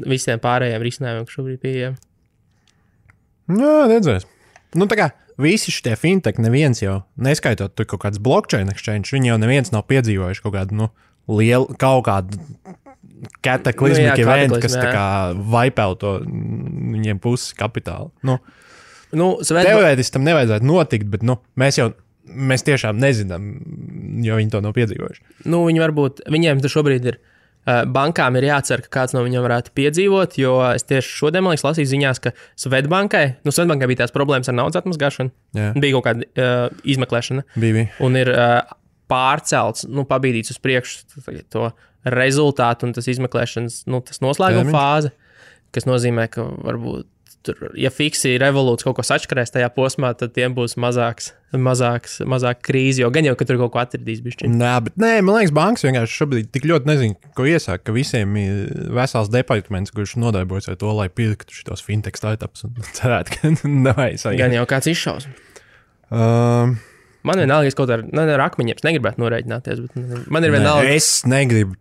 visiem pārējiem risinājumiem, kas šobrīd pieejami. Jā, redzēs. Tā kā visi šie fintech neviens jau, neskaitot tur kaut kāds blockchain exchange, viņi jau neviens nav piedzīvojuši kaut kādu, lielu, kaut kādu kataklizmiku eventu, kas tā kā vaipēl to viņiem pusi kapitālu. Teorētiski tam nevajadzētu notikt, bet mēs tiešām nezinām, jo viņi to nav piedzīvojuši. Viņiem šobrīd ir, bankām ir jācer, ka kāds no viņiem varētu piedzīvot, jo es tieši šodien, man liekas, lasīju ziņās, ka Svetbankai bija tās problēmas ar naudas atmazgāšanu, bija kaut kāda izmeklēšana, un ir pārcelts, pabīdīts uz priekšu to rezultātu un tas izmeklēšanas, tas noslēguma fāze, kas nozīmē, ka varbūt tur, ja fiksi revolūts kaut ko sačkarēs tajā posmā, tad tiem būs mazāk krīzi, jo gan jau, ka tur kaut ko atradīs bišķiņ. Man liekas, bankas vienkārši šobrīd tik ļoti nezinu, ko iesāk, ka visiem ir vesels departaments, kurš nodarbojas ar to, lai pirktu šitos fintech startups un cerētu, ka nevajag. Gan jau kāds izšaus. Man vienalga, es kaut ar akmeņiem negribētu norēķināties, bet man ir vienalga. Es negribu,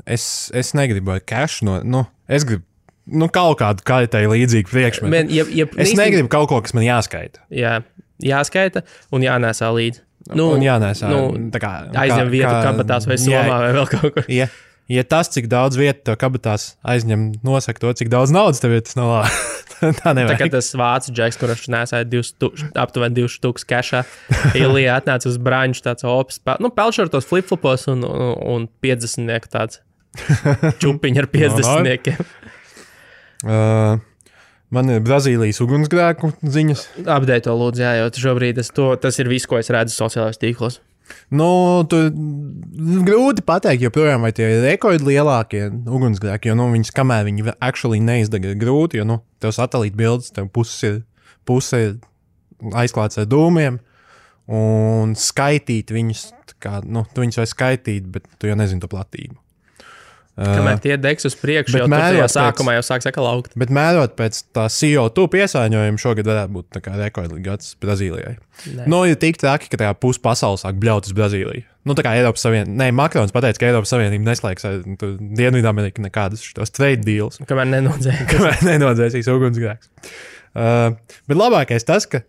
es negribu ar cash es gribu kaut kādu kaitai līdzīgu priekšmetu. Es negribu kaut ko, kas man jāskaita. Jā, jāskaita un jānēsā līdzi. Un jānēsā. Aizņem vietu kabatās vai somā vai vēl kaut kur. Ja tas, cik daudz vietu tev kabatās aizņem, nosaka to, cik daudz naudas tev ir, tas nav labi. Tā nevajag. Tā kā tas vācu džeks, kurš nesāja aptuveni 2 štukas kešā, Ilija atnāca uz braņšu tāds opis, pelšortos flip-flopos un 50-nieku tāds čupiņi ar 50-niekiem. Man ir Brazīlijas ugunsgrēku ziņas. Update to lūdzu, jo šobrīd tas ir viss, ko es redzu sociālajos tīklos. Grūti pateikt, joprojām vai tie ir rekordlielākie ugunsgrēki, jo viņas, kamēr viņi actually neizdega, ir grūti, jo tev satelīta bildes, tev puse ir aizklāts ar dūmiem, un skaitīt viņus, tu viņus vai skaitīt, bet tu jau nezini to platību. Kamēr tie degs uz priekšu, jau tajā sākumā jau sāks atkal augt. Bet mērot pēc tā CO2 piesārņojuma šogad varētu būt rekordīgi gads Brazīlijai. Ir tik traki, ka tajā pus pasaules sāk bļaut uz Brazīliju. Tā kā Eiropas Savienība, Makrons pateica, ka Eiropas Savienība neslēgs ar Dienvidamerika nekādas šitos trade deals. Kamēr nenodzēsīs ugunsgrēks. Bet labākais tas, ka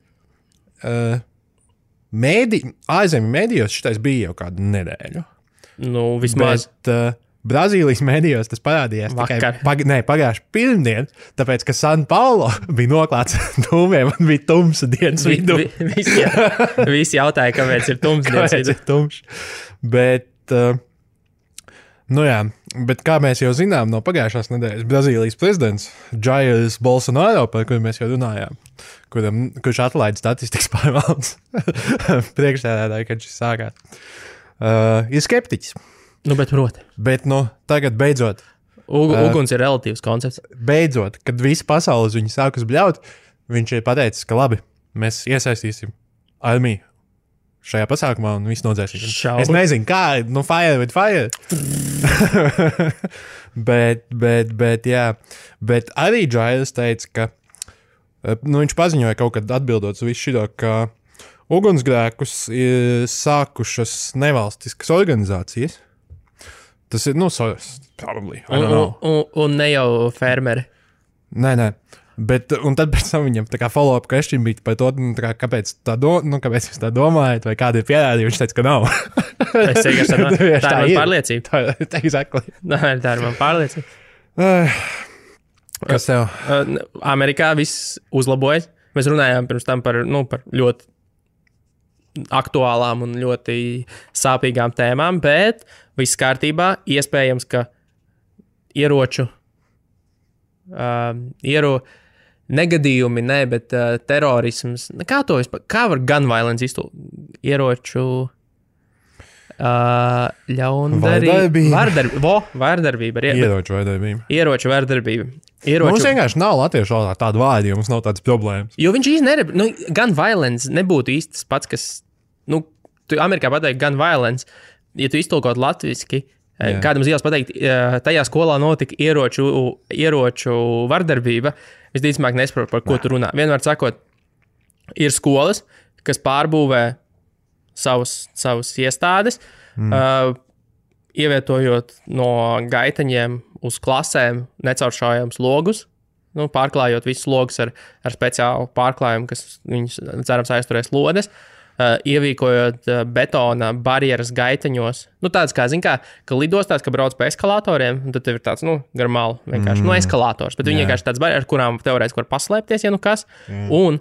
ārzemju mēdījos šitais bija jau kādu nedēļu. Vismaz. Bet, Brazīlijas medijos tas parādījās tikai pagājuši pirmdien, tāpēc, ka San Paulo bija noklāts dūmiem un bija tumsa dienas vidū. Visi jautāja, kāpēc ir tums dienas vidū. Bet, bet kā mēs jau zinām no pagājušās nedēļas, Brazīlijas prezidents Jairs Bolsonaro, par kuru mēs jau runājām, kurš atlaida statistikas pārvaldes priekšsēdētāju, kad šis sākās, ir skeptiķis. Bet proti. Bet tagad beidzot. Uguns ir relatīvs koncepts. Beidzot, kad visi pasaules viņu sākas bļaut, viņš ir pateicis, ka labi, mēs iesaistīsim armiju šajā pasākumā un visu nodzēsim. Es nezinu, kā, fire with fire. bet jā. Bet arī Jairs teica, ka viņš paziņoja kaut kad atbildot uz visu šito, ka ugunsgrēkus ir sākušas nevalstiskas organizācijas. Tas ir, probably. Un ne jau fermeri. Nē. Bet, un tad pēc tam viņam tā kā follow-up question bija par to, kāpēc kāpēc jūs tā domājat, vai kādi ir pierādījumi, viņš teica, ka nav. Es teikšu, tā ir man pārliecība. Exactly. Tā ir man pārliecība. Kas tev? Amerikā viss uzlabojas. Mēs runājām pirms tam par ļoti aktuālām un ļoti sāpīgām tēmām, bet viss kārtībā. Iespējams, ka negadījumi, bet terorisms. Kā var gun violence iztulkot? Ieroču vārdarbība. Ieroču vārdarbība. Mums vienkārši nav latviešu valodā tāda vārda, jo mums nav tādas problēmas. Jo viņš īsti gun violence nebūtu īsti tas pats, kas, tu Amerikā pateikt gun violence, ja tu iztulkot latviski, kādam zīles pateikt, tajā skolā notika ieroču vardarbība, visticamāk nesaprotu, par ko tu runā. Vienmēr sakot, ir skolas, kas pārbūvē savus iestādes, ievietojot no gaitaņiem uz klasēm necauršājams logus, pārklājot visus logus ar speciālu pārklājumu, kas viņus, cerams, aizturēs lodes, ievīkojot betona barjeras gaiteņos. Tāds kā, ka lidostās, ka brauc pa eskalatoriem, un tad tev ir tāds, garmāli vienkārši, eskalators, bet viņi vienkārši tāds barjeras, ar kurām teorētiski var paslēpties, ja kas, un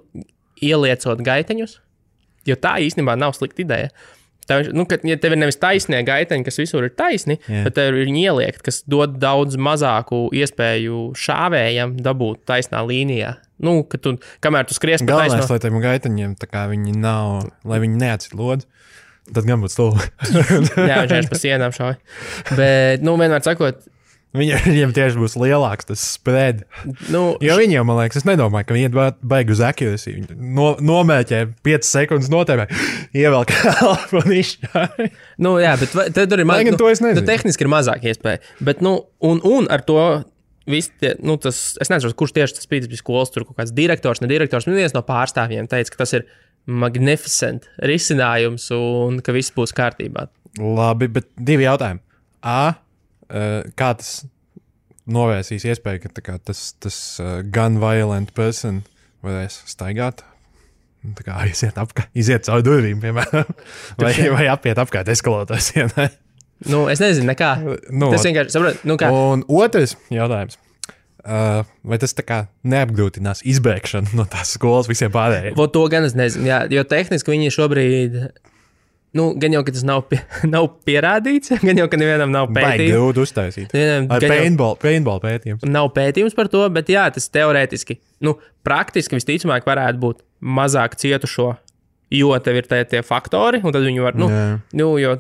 ieliecot gaiteņus, jo tā īstenībā nav slikta ideja. Ja tev ir nevis taisnie gaiteņi, kas visur ir taisni, bet tev ir viņi ieliekt, kas dod daudz mazāku iespēju šāvējam dabūt taisnā līnijā. Kamēr tu skries pa taisno... Galvenais, lai tiem gaiteņiem, tā kā viņi nav, lai viņi neatsit lodzi, tad gan būtu stulbi. Jā, viņš vienkārši pa sienām šauj. Bet, vienmēr sakot, viņiem tieši būs lielāks tas spread. Jo viņiem, man liekas, es nedomāju, ka viņi baigi uz accuracy. Nomēķē 5 sekundes notēmē, ievelk elpu un izšķāj. Jā, bet tad tur ir tehniski ir mazāk iespēja. Bet, un ar to visi tie, es nezinu, kurš tieši tas bija skolas, tur kaut kāds direktors, nedirektors, viens no pārstāvjiem teica, ka tas ir magnificent risinājums un ka viss būs kārtībā. Labi, bet 2 jautājumi. Kā tas novērsīs iespēju, ka tas gun violent person varēs staigāt? Tā kā iziet caur durvīm, piemēram, vai apiet apkārt eskalators sienai. Es nezinu, nekā. Tas vienkārši saprot, kā. Un otrs jautājums. Vai tas tā kā neapgrūtinās izbēgšanu no tās skolas visiem pārējiem? To gan es nezinu, jā, jo tehniski viņi šobrīd... gan jau, ka tas nav pierādīts, gan jau, ka nevienam nav pētījums. Baigi grūti uztaisīt. Ar paintball pētījums. Nav pētījums par to, bet jā, tas teorētiski, praktiski visticamāk varētu būt mazāk cietušo, jo tev ir tie faktori, un tad viņi var, jo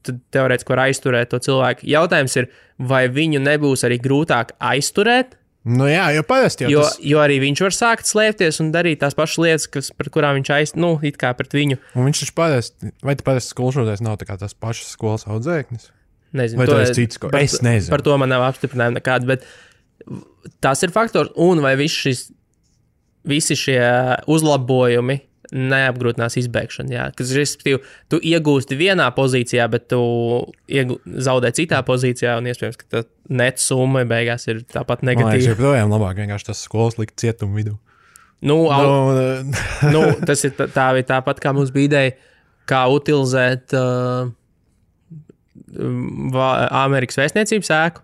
tad teorētiski var aizturēt to cilvēku. Jautājums ir, vai viņu nebūs arī grūtāk aizturēt? Jā, jo parasti jau jo arī viņš var sākt slēpties un darīt tās pašas lietas, par kurām viņš it kā pret viņu. Un viņš taču parasti, vai parasti skolšoties nav tā kā tās pašas skolas audzēknis? Nezinu. Vai tas ir cits skolas? Es nezinu. Par to man nav apstiprinājumi nekāds, bet tas ir faktors, un vai visi šie uzlabojumi neapgrūtinās izbēgšanu, jā. Kas, respektīvi, tu iegūsti vienā pozīcijā, bet tu zaudē citā pozīcijā, un iespējams, ka tā net summa beigās ir tāpat negatīva. Man liekas, joprojām labāk vienkārši tas skolas likt cietumu vidū. Tas ir tāpat, kā mums bija ideja, kā utilizēt Amerikas vēstniecības ēku,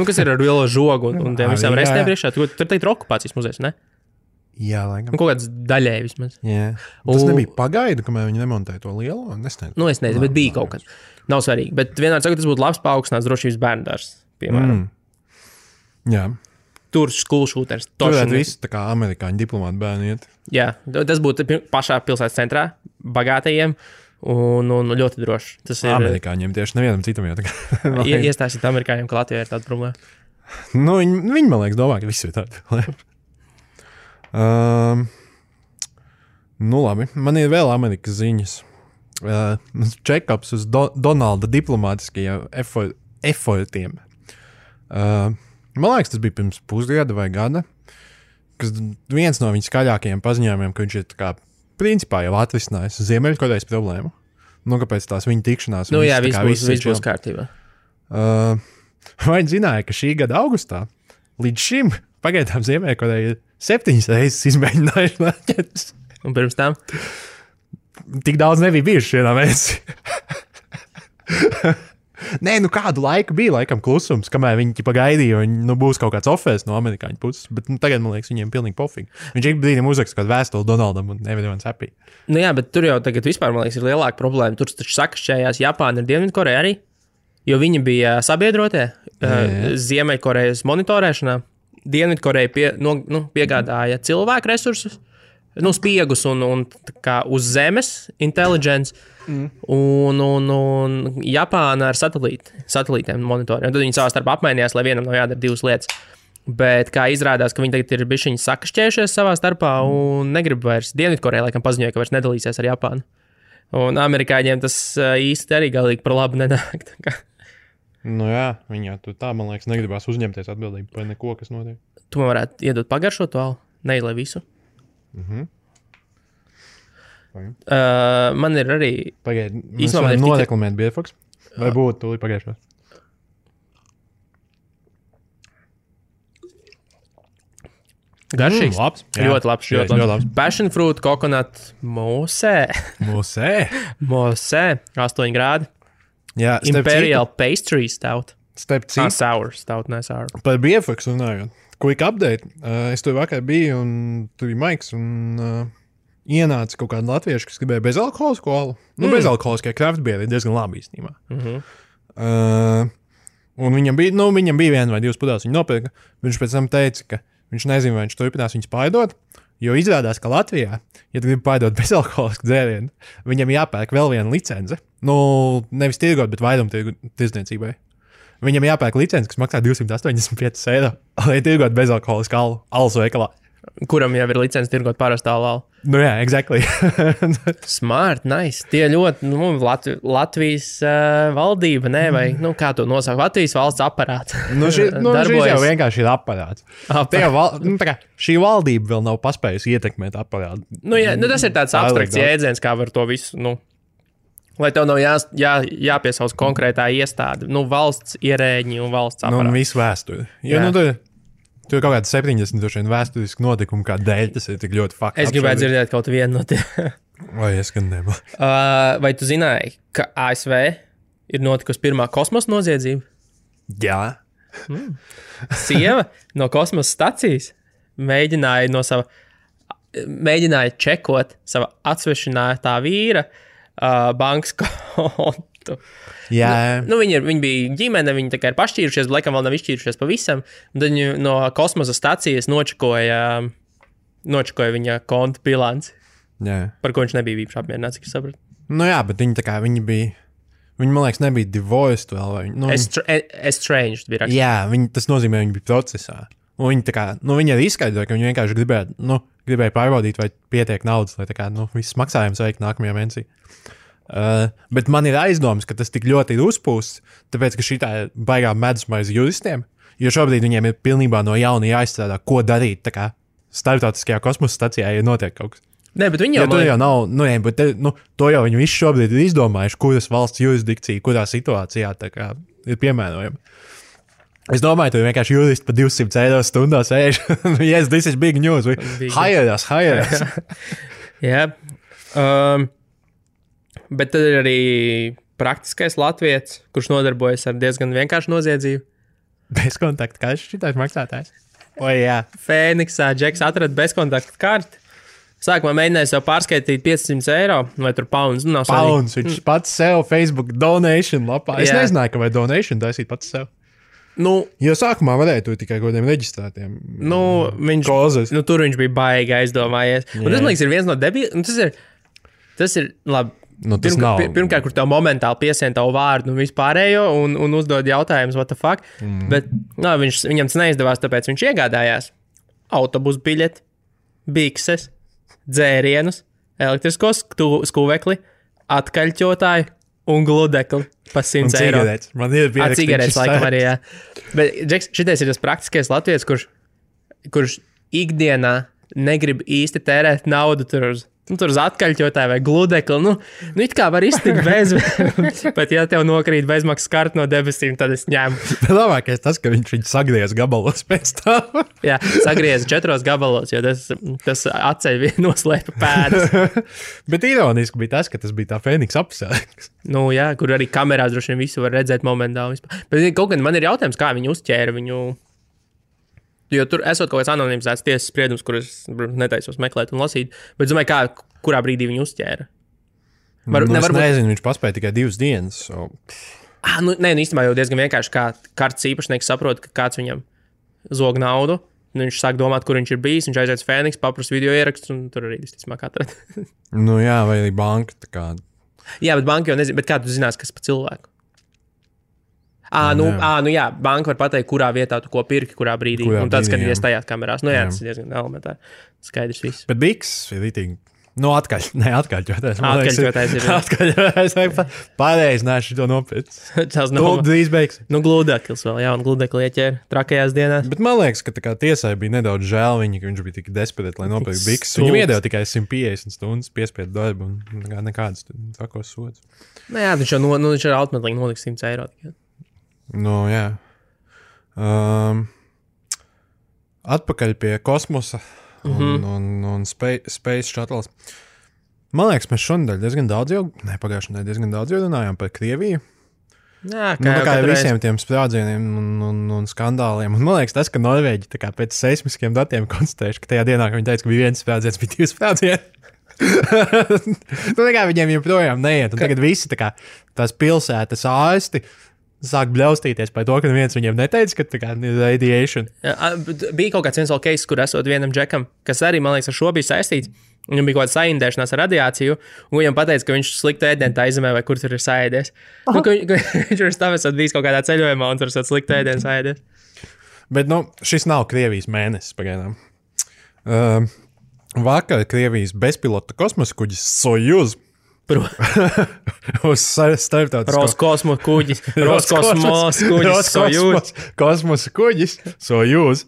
kas ir ar lielo žogu un tiem visām restēm priekšā. Tur teikt ir okupācijas muzejs, ne? Jā, laikam. Kaut kāds daļēji vismaz. Jā. Tas nebija pagaidu, kamēr viņi nemontēja to lielo? Es nezinu, bet bija kaut kas. Nav svarīgi. Bet vienmēr saku, tas būtu labs paaugstināts drošības bērndārs, piemēram. Jā. Tur school shooters. Tur varētu visi tā kā amerikāņu diplomāti bērni iet. Jā, tas būtu pašā pilsētas centrā, bagātajiem un ļoti droši. Tas ir amerikāņiem tieši nevienam citam jau tā kā. Iestāstīt amerikāņiem, ka Latvijā ir tāda problēma. Viņi, man liekas, domā, ka visi ir tādi problēma. Labi, man ir vēl Amerikas ziņas. Check-ups uz Donalda diplomātiskajiem effortiem. Man liekas, tas bija pirms pusgada vai gada, kas viens no viņa skaļākajiem paziņojumiem, ka viņš ir tā kā principā jau atrisinājis Ziemeļkorejas problēmu. Kāpēc tās viņa tikšanās? Viss būs kārtībā. Vai zināja, ka šī gada augustā līdz šim pagaidām Ziemeļkoreja ir 7 reizes izmēģinājuši raķetes. Un pirms tam? Tik daudz nebija bijuši vienā mēnesī. Nē, kādu laiku bija laikam klusums, kamēr viņi gaidīja, un būs kaut kāds offers no amerikāņu puses. Bet tagad, man liekas, viņiem pilnīgi pofīgi. Viņš ik brīdim uzraksta kādu vēstuli Donaldam un everyone's happy. Jā, bet tur jau tagad vispār, man liekas, ir lielāka problēma. Tur taču sakašķējās Japāna un Dienvidkoreja arī, jo viņi bija sabiedrotie Ziemeļkorejas monitorēšanā. Dienvidkoreja piegādāja cilvēku resursus, spiegus un kā uz zemes intelligence, un Japāna ar satelītiem monitoriem. Tad viņi savā starpā apmainījās, lai vienam nav jādara 2 lietas. Bet kā izrādās, ka viņi tagad ir bišķiņi sakašķējušies savā starpā un negrib vairs. Dienvidkoreja laikam paziņoja, ka vairs nedalīsies ar Japānu. Un amerikāņiem tas īsti arī galīgi par labu nenāk. Jā, viņi jau tur tā, man liekas, negribās uzņemties atbildību par neko, kas notiek. Tu man varētu iedot pagaršot to alu, neilai visu. Man ir arī... Pagaid, mēs varam noreklamēt Bierfoks? Vai būtu tūlīt pagaišos? Garšīgs. Labs. Jā. Ļoti labs. Ļoti labs. Passion fruit, coconut, mosē. Mosē. 8 grādi. Jā, Imperial pastry stout. Starp citu. Sour stout, ne sour. Par BFX runājot. Quick update. Es tur vakar biju un tur bija Maiks un ienāca kaut kāda latvieša, kas gribēja bezalkoholisku alu. Bezalkoholiskie craft beeri ir diezgan labi īstenībā. Un viņam bija 1 vai 2 pudeles, viņa nopirka. Viņš pēc tam teica, ka viņš nezina, vai viņš turpinās viņus pārdot, jo izrādās, ka Latvijā, ja tu gribi pārdot bezalkoholisku dzērienu, viņam jāpērk vēl viena licence. Nevis tirgot, bet vairumtirgu tirdzniecībai. Viņam jāpērk licence, kas maksā 285 eiro, lai tirgot bezalkoholisku alus veikalā. Kuram jau ir licence tirgot parastā alu. Jā, exactly. Smart, nice. Tie ļoti, Latvijas valdība, ne, vai, kā to nosaka, Latvijas valsts aparāts. Šis jau vienkārši ir aparāts. Šī valdība vēl nav paspējusi ietekmēt aparātu. Tas ir tāds abstrakts jēdziens, kā var to visu, lai tev nav jāpiesauc konkrētā iestāde, valsts ierēģi un valsts aparāts. Un visu vēsturi. Tur ir kaut kāda 70 vēsturiski notikumi, kā dēļ tas ir tik ļoti faktiski. Es gribētu dzirdēt kaut vienu no tiem. Vai es gan nebūtu? Vai tu zināji, ka ASV ir notikusi pirmā kosmosa noziedzība? Jā. Sieva no kosmosa stacijas mēģināja čekot sava atsvešinātā vīra bankas kontu. Jā. Viņi bija ģimene, viņi tā kā ir pašķīrušies, bet laikam vēl nav izšķīrušies pavisam. Tad viņi no kosmosa stacijas nočakoja viņa konta bilanci. Jā. Par ko viņš nebija īpaši apmierināts, cik es sapratu. Bet viņi bija, man liekas, nebija divorced vēl. Estranged bija raksts. Jā, tas nozīmē, viņi bija procesā. Un viņi arī izskaidroja, ka viņi vienkārši gribēja pārbaudīt, vai pietiek naudas, lai viss maksājums veikt nākamajā mēnesī. Bet man ir aizdoms, ka tas tik ļoti ir uzpūsts, tāpēc, ka šī tā ir baigā medusmaize juristiem, jo šobrīd viņiem ir pilnībā no jauna jāizstrādā, ko darīt, starptautiskajā kosmosa stacijā, ja notiek kaut kas. Nē, bet viņi jau nav, to jau viņi visi šobrīd ir izdomājuši, kuras valsts jurisdikcija, kurā situācijā ir piemērojama. Es domāju, tu vienkārši juristi pa 200 eiro stundā sēž. Yes, this is big news. Hire us. Jā. Bet tad ir arī praktiskais latvietis, kurš nodarbojas ar diezgan vienkāršu noziedzību. Bezkontakta kartes šitais maksātājs. Jā. Fēniksā Džeks atrada bezkontakta karti. Sākumā mēģināja sev pārskaitīt 500 eiro vai tur pounds. Pounds, viņš pats sev Facebook donation lapā. Es nezināju, ka vai donation taisīt pats sev. Jo sākumā varēja to tikai kaut kādiem reģistrētiem. Tur viņš bija baigi aizdomājies. Un tas, man liekas, ir viens no debiliem. Tas ir labi. Pirmkārt, kur tev momentāli piesien tavu vārdu un vispārējo un uzdod jautājumus, what the fuck. Bet viņam tas neizdevās, tāpēc viņš iegādājās autobusu biļeti, bikses, dzērienus, elektrisko skuvekli, atkaļķotāju un gludekli pa 100 eiro. Man ir pierakstīts. Cigaretes laikam arī, jā. Bet, Džeks, šitais ir tas praktiskais latvietis, kurš ikdienā negrib īsti tērēt naudu tur uz atkaļķotāju vai gludekli. It kā var iztikt bez, bet ja tev nokrīt bezmaksas karta no debesīm, tad es ņemu. Labākais tas, ka viņš viņu sagriez gabalos pēc tam. Jā, sagriez 4 gabalos, jo tas atceļ noslēpa pēdas. Bet ironiski bija tas, ka tas bija tā Fēniks apsēks. Jā, kur arī kamerās droši vien visu var redzēt momentāli. Bet kaut gan man ir jautājums, kā viņi uzķēra viņu. Jo tur esot kaut kāds anonimizēts tiesas spriedums, kurus netaisos meklēt un lasīt. Bet es domāju, kurā brīdī viņu uzķēra. Nezinu, viņš paspēja tikai 2 dienas. Īstenībā jau diezgan vienkārši, kā kartes īpašnieks saprot, ka kāds viņam zog naudu. Viņš sāk domāt, kur viņš ir bijis. Viņš aiziet uz Fēniks, paprasa video ieraksts un tur arī visticamāk atrada. Jā, vai arī banka. Jā, bet banka jau nezina. Bet kā tu zinās, kas pa cilvēku? Jā, banka var pateikt, kurā vietā tu ko pirki, kurā brīdī. Un tad skatīties tajās kamerās. Tas ir diezgan elementāri. Skaidrs viss. Bet biks ir rītīgi. Atkaļķotais. Atkaļķotais ir. Atkaļķotais. Pareizi, nē, šito nopirkt. Tas nav. Drīz beigs. Gludeklis vēl, un gludekli ieķēra trakajās dienās. Bet man liekas, ka tiesai bija nedaudz žēl viņa, ka viņš bija tik desperēts, lai nopirkt biks. Viņam iedeva tikai 150 stundas piespiedu darbu un nekādas takos sods. Jā, viņš jau automatlīgi noliks 100 eiro tikai. Jā. atpakaļ pie kosmosa un Space Shuttles. Man liekas, mēs šonadēļ diezgan daudz pagājušajā nedēļā diezgan daudz runājām par Krieviju. Jā, kā visiem tiem sprādzieniem un skandāliem. Un man liekas, tas, ka Norvēģi pēc seismiskiem datiem konstatējuši, ka tajā dienā, kad viņi teica, ka bija viens sprādziens, bija 2 sprādzieni. Viņiem joprojām neiet. Un tagad visi tās pilsētas ārsti sāk bļaustīties par to, ka viens viņiem neteica, ka ir radiation. Bija kaut kāds viens vēl case, kur esot vienam džekam, kas arī, man liekas, ar šo bija saistīts. Viņam bija kaut kāda saindēšanās ar radiāciju, un viņam pateica, ka viņš sliktu ēdienu tā izemē, vai kur tur ir saēdies. Viņš ir stāvēs bijis kaut kādā ceļojumā, un tur ir sliktu ēdienu saēdies. Bet, šis nav Krievijas mēnesis pagaidām. Vakar Krievijas bezpilota kosmosa kuģis Sojuz uz starptautisko Roskosmos kuģis Sojuz. Kosmosa kuģis Sojuz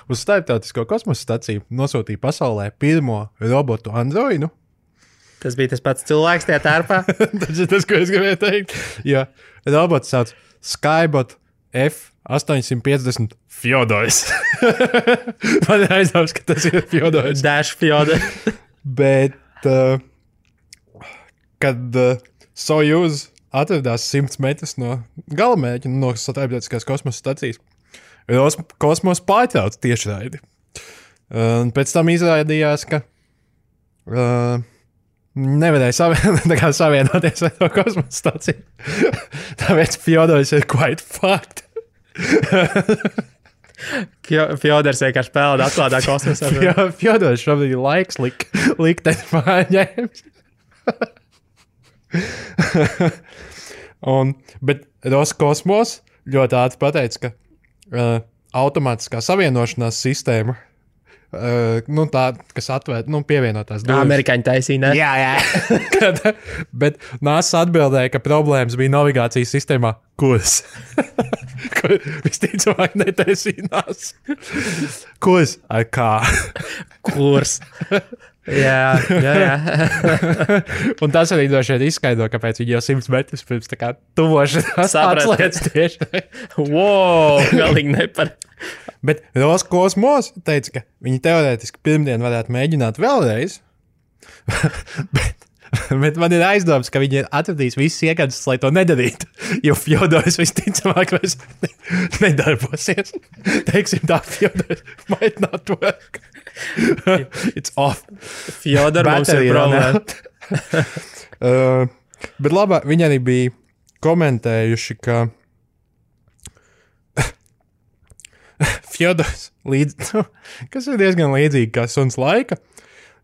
uz starptautisko kosmosa staciju nosūtīja pasaulē pirmo robotu androidu. Tas bija tas pats cilvēks tajā tērpā. Tas ir tas, ko es gribēju teikt. Ja robots sauc Skybot F850 Fjodors. Man ir aizdoms, ka tas ir Fjodors. Dash Fjodor. Bet kad Sojuz atradās 100 metrus no galamērķa, no starptautiskās kosmosa stacijas, kosmos pārtrauc tiešraidi. Pēc tam izrādījās, ka nevarēja savienoties ar to kosmosa staciju. Tāpēc Fjodors ir quite fucked. Fjodors vienkārši pelda atklātā kosmosā. Fjodors šobrīd ir laiks likteni pārņēmis. Bet Roskosmos ļoti ātri pateica, ka automātiskā savienošanās sistēma, tā, kas atvērt, pievienotās durvis. Amerikāņi taisīja, ne? Jā. Bet NASA atbildēja, ka problēmas bija navigācijas sistēmā kurs. Kur visticamāk netaisīnās. Kurs ar kā? Kurs. Jā. Un tas arī droši vien izskaidro, kāpēc viņi jau 100 metrus pirms tuvošanās atslēdz tieši. Wow, galīgi nepar. Bet Roskosmos teica, ka viņi teorētiski pirmdien varētu mēģināt vēlreiz. Bet man ir aizdoms, ka viņi atradīs visas iekādas, lai to nedarītu. Jo Fjodors visticamāk vairs nedarbosies. Teiksim tā, Fjodors might not work. It's off. Fjodor mums ir problēma. Bet labā, viņi arī bija komentējuši, ka Fjodors kas ir diezgan līdzīgi kā suns laika,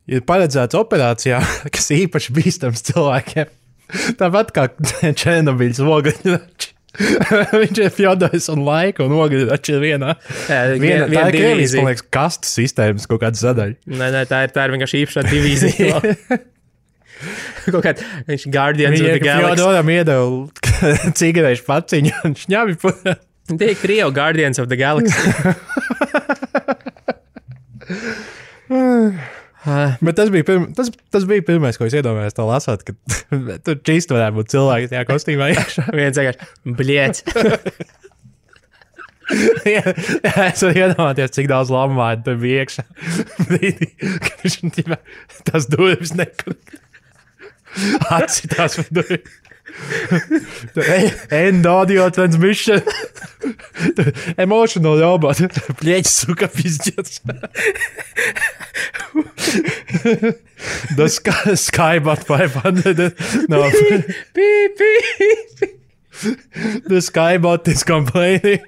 ir paredzēts operācijā, kas īpaši bīstams cilvēkiem. Tāpat kā Černobiļas ogļrači. Viņš ir Fjodors un laika un ogļrači ir vienā. Tā ir Krievijas, man liekas, kastas sistēmas kaut kāda sadaļa. Nē, tā ir vienkārši īpašā divīzija. Kaut kāda, viņš Guardians of the Galaxy. Fjodoram iedeva cigarešu paciņu un šņabi putā. Tie ir Krievu Guardians of the Galaxy. Bet tas bija pirmais, ko es iedomājos to lasot, ka tur čīst varētu būt cilvēki tajā kostīmā iekšā. Viens vienkārši, bliets. Jā, es varu iedomāties, cik daudz lamvārdu tur bija iekšā. Brīdī, kad viņš tās durvis nekur atcitās par durvis. End audio transmission. Emotional robot. Pleķis suka pizģets. The Skybot 500. No. Beep. The Skybot is complaining.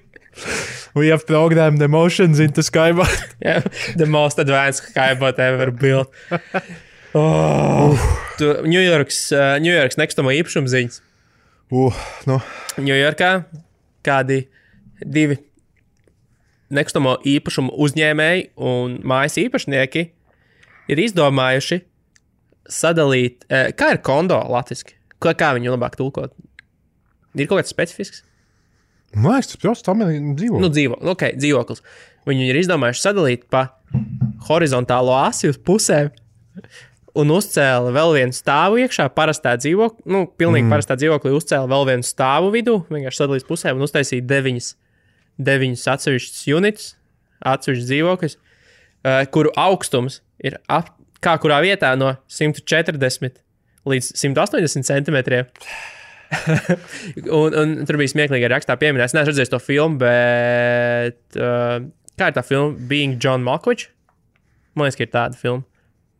We have programmed emotions into Skybot. Yeah, the most advanced Skybot ever built. New York's nekustamo īpašumu ziņas. Ņujorkā kādi 2 nekustamo īpašumu uzņēmēji un mājas īpašnieki ir izdomājuši sadalīt, kā ir kondo latviski? Kā viņu labāk tulkot? Ir kaut kāds specifisks? Man liekas, tas prosts dzīvoklis. Dzīvoklis. Viņi ir izdomājuši sadalīt pa horizontālo asi uz pusēm. Un uzcēla vēl vienu stāvu iekšā, parastā dzīvokli, pilnīgi parastā dzīvoklī uzcēla vēl vienu stāvu vidū, vienkārši sadalīs pusēm un uztaisīja 9 atsevišķas units, atsevišķs dzīvoklis, kuru augstums ir kā kurā vietā no 140 līdz 180 centimetriem. un tur bija smieklīgi rakstā pieminēts. Es neesmu redzējis to filmu, bet kā ir tā filma? Being John Malkovich? Man liekas, ka ir tāda filma.